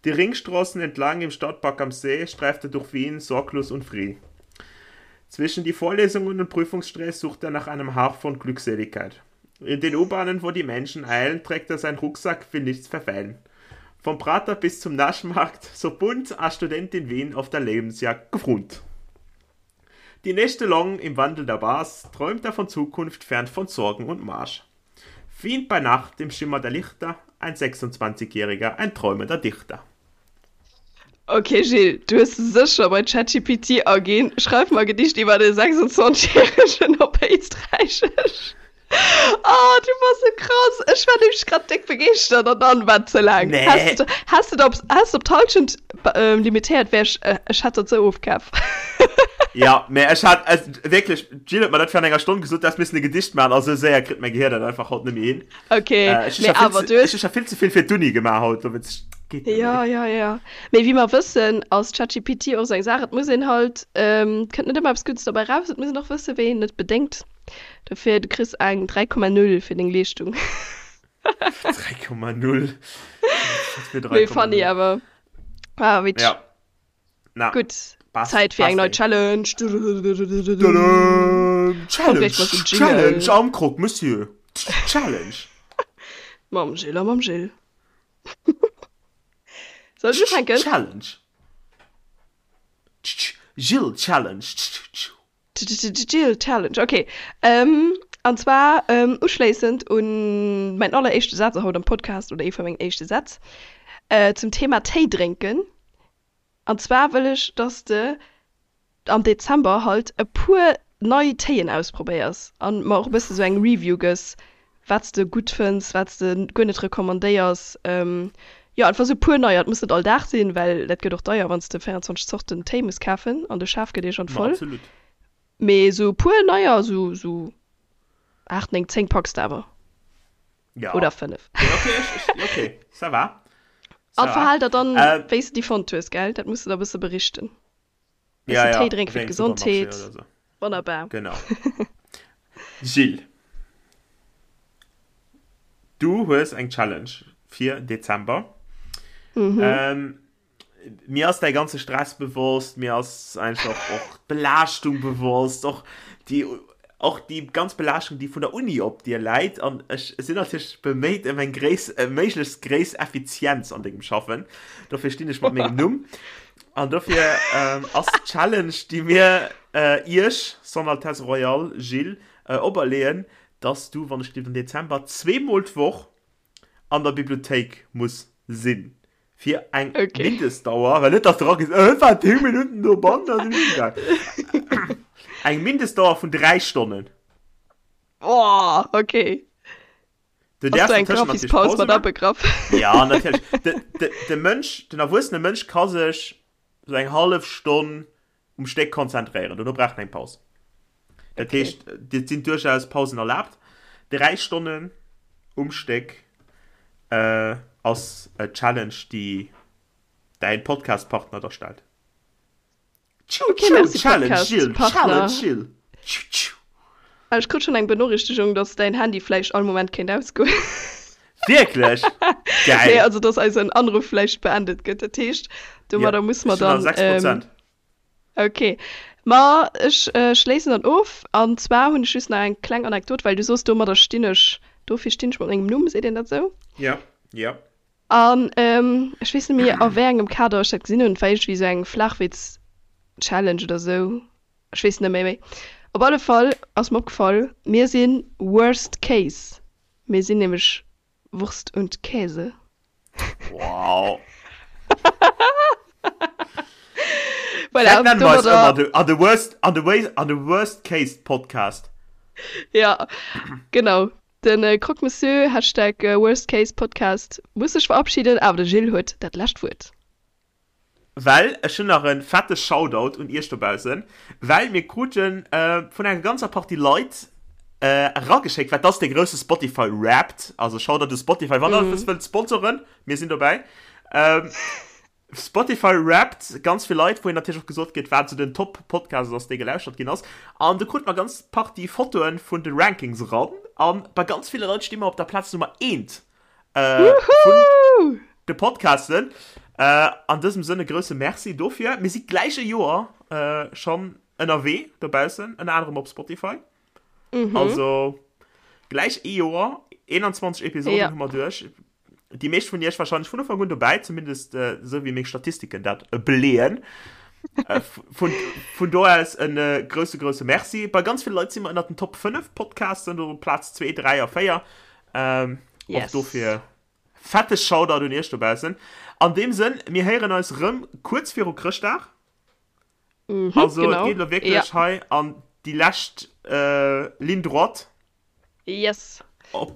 Die Ringstraßen entlang im Stadtpark am See streift er durch Wien sorglos und frie. Zwischen die Vorlesungen und Prüfungsstress sucht er nach einem Hauch von Glückseligkeit. In den U-Bahnen, wo die Menschen eilen, trägt er seinen Rucksack, will nichts verfeilen. Vom Prater bis zum Naschmarkt, so bunt a Student in Wien auf der Lebensjagd gefront. Die Nächte lang im Wandel der Bars träumt er von Zukunft fern von Sorgen und Marsch. Wien bei Nacht im Schimmer der Lichter, ein 26-Jähriger, ein träumender Dichter. Ok Gilles, du hues sécher bei ChatGPT aginn, Schreif mer e Gedicht iwwer e 26 järegen op Éisträichesch. Oh, du bass sou krass! Ech war nämlech grad déck begeeschtert an dann war et ze laang. Nee. Häss de, häss de op, häss de op d'Hallschent limitéiert, wär ech, ech hätt dat sou ofkaf. Ja, mä ech hat wierklech, d'Jill huet mer dat virun enger Stonn gesot, du häss missen e Gedicht maachen, a sou séier kritt mäi Gehier dat einfach haut net méi hin. Ok, Ech hu mee scho vill awer ze, du hues. ech hu scho vill ze vill fir d'Uni gemaach haut, dowéinst geet net Ja, méi. ja, ja. Mee wéi mer wëssen, ass ChatGPT och sou eng Saach, et muss een halt, et kënnt net ëmmer eppes Guddes dobäi raus, et muss een och wëssen, wéi een et bedéngt. Dofir, du kriss eng 3,0 fir deng Leeschtung. 3,0? Wat fir Mee funny 3,0? awer. Ah, witzeg. Ja. Na, Gutt, passt, Zäit fir eng passt nei ey. Challenge. Tadam! Kommt Challenge! gleich mat dem Challenge Jingle. am Croque Monsieur! Challenge! Mam Gilles a mam Gilles. Soll ech ufänken? Challenge! Gilles Challenge! Gilles Challenge, ok. An zwar uschléissend un mäin alleréischte Saz haut am Podcast, oder ee vu mengen éischte Sätz, zum Thema Téi drénken. An zwar wëll ech, dass de am Dezember halt e puer nei Téien ausprobéiers an mer och e bësse sou eng Review gëss, wat s de gutt fënns, wat s de guer net recommandéiers. Jo, einfach sou e puer neier. Et muss net all Dag sinn, well dat gëtt och deier, wann s de 24 Zorten Téi muss kafen an de Schaf gëtt iergendwann Ma voll. absolut. Mee sou e puer neier, sou sou 8, 9, 10 packs de awer. Ja. Oder 5. Nee, okay, ech, ech, okay, ça va. Ça An va. verhal der dann, Äh, wéi s de déi fonnt hues, gell? Dat muss de da e bësse berichten. ja, Bëssen ja, Téi drénke fir wéi engem Supermarché d'Gesondheet. oder so. Wonnerbar. Genau. Gilles, du hues eng Challenge fir Dezember. Mhm. Ähm, mir ass däi ganze Stress bewosst, mir ass einfach och d'Belaaschtung bewosst, och déi, och déi ganz Belaaschtung, déi vun der Uni op dir läit. An ech sinn natierlech beméit ëm eng gréiss, méiglechst gréiss Effizienz an dengem Schaffen. Dofir stinn ech mat mengem Numm. An dofir ähm, ass d'Challenge, déi mir äh, iech, Son Altesse Royale Gilles, äh, operleeën, dass du, wann ech dir den Dezember zweemol d'Woch an der Bibliothéik muss sinn. Fir eng Okay. Mindestdauer, well net, dass du eragees, äh, war 10 Minuten dobannen, da sinn ech heemgaang. Eng Mindestdauer vun 3 Stonnen. Boah, okay. Du Ass do däerfs eng dozwëschen natierlech Grafispaus Pause mat maachen. abegraff? Ja, natierlech. De, de, de Mënsch, den erwuessene Mënsch ka sech sou eng hallef Stonn um Stéck konzentréieren. Dono brauch en eng Paus. Dat Okay. heescht, et sinn duerchaus Pausen erlaabt. 3 Stonnen um Stéck äh, ass e Challenge, déi däin Podcast-Partner der stellt. Tschu, Okay, tschu, merci Challenge, Podcast Jill, Partner. Challenge, Jill. Tschu, tschu. Ah, Ech krut schon eng Benorichtigung, dass däin Handy vläicht all Moment kéint ausgoen. Wierklech? Nee, Geil. also dass eisen Anruf vläicht beendet gëtt. Dat heescht, Ja, domadder muss mer ech hunn nach dann 6 ähm, Prozent. Okay, ma ech schléissen dann of. An zwar hunn ech just nach eng kleng Anekdot, well du soos, domadder stinn ech, dofir stinn ech mat mengem Numm, seet een dat esou? Ja, ja. An ech weess net méi a wéi engem Kader ech dat gesinn hunn, et war iergendwéi esou eng Flachwitz-Challenge oder esou, ech weess net méi. Méi op alle Fall ass mer opgefall, mir si Worst Case, mir sinn nämlech Wurst und Käse. Wow. Voilà, Vielleicht nennen wir uns domadder immer the, an the worst, an the way, an the worst case Podcast. Ja, genau. Den äh, Croque Monsieur, Hashtag äh, Worst Case Podcast, muss sech verabschieden, awer de Gilles huet dat lescht Wuert. Well ech hunn nach e fette Shoutout un iech dobaussen, well mir krute vun enger ganzer Partie Leit erageschéckt, wat ass dee grousse Spotify Wrapped, also Shoutout u Spotify, wann der eppes wëllt sponsoren, mir sinn dobäi. Spotify Wrapped, ganz vill Leit, wou een natierlech och gesot kritt, wat esou den Top-Podcast ass, dee gelauschtert ginn ass. An do krute mer ganz Partie Fotoe vun de Rankings eran, a bei ganz ville Leit sti mer op der Plaz Nummer eent. Äh, vun de Podcasten. Äh, an dësem Sënn e grousse Merci dofir. Mir si gläich e Joer äh, schonn ënnerwee dobaussen, ënner anerem op Spotify. Mhm. Also gläich ee Joer, 21 Episoden ja. hu mer duerch. Déi meescht vun iech wahrscheinlech vun Ufank un dobäi, zumindest äh, sou wéi meng Statistiken dat äh, beleeën. äh, vun, vun do aus en äh, grousse, grousse Merci. Bei ganz ville Leit si mer ënner den Top 5 Podcasten, do Plaz 2, 3 a 4. Ähm, yes. Och dofir fette Shoutout un iech dobaussen. An deem Sënn, mir héieren eis rëm kuerz viru Chrëschtdag. Mhm, also genau. et geet lo wierklech ja. hei an déi lescht äh, Ligne droite. Yes. Op,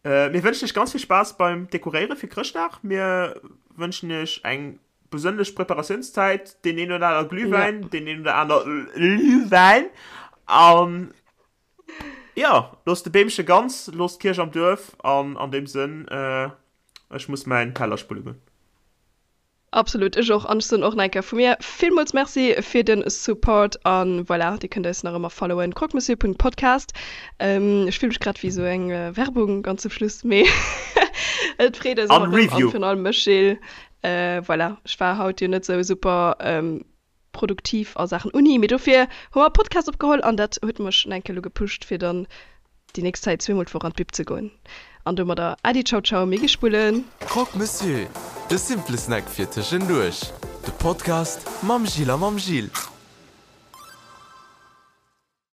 äh, mir wënschen iech ganz vill Spaass beim Dekoréiere fir Chrëschtdag. Mir wënschen iech eng besënnlech Preparatiounszäit, deen een oder aner Glühwäin, ja. deen een oder aner Glühwäin. An Jo, looss de Beemche ganz, looss d'Kierch am Duerf an an deem Sënn, ech muss mäin Teller spulle goen. Absolut, ech och an ech soen och nach eng Kéier vu mir villmools Merci fir den Support an voilà, dir kënnt eis nach ëmmer followen, croquemessieur.podcast. Ech fill mech grad wéi sou eng Werbung ganz zum Schluss, mee et freet eis An ëmmer rëm an Review. virun allem mech Gilles. Voilà, ech war haut jo net sou super produktiv a Saachen Uni, mee dofir hu mer e Podcast opgeholl an dat huet mech nach eng Kéier elo gepusht fir dann déi nächst Zäit zweemol d'Woch an d'Bib ze goen. An domadder Äddi, Ciao Ciao, mir gi spullen. Croque Monsieur, de simple Snack fir tëschenduerch. De Podcast mam Gilles a mam Gilles.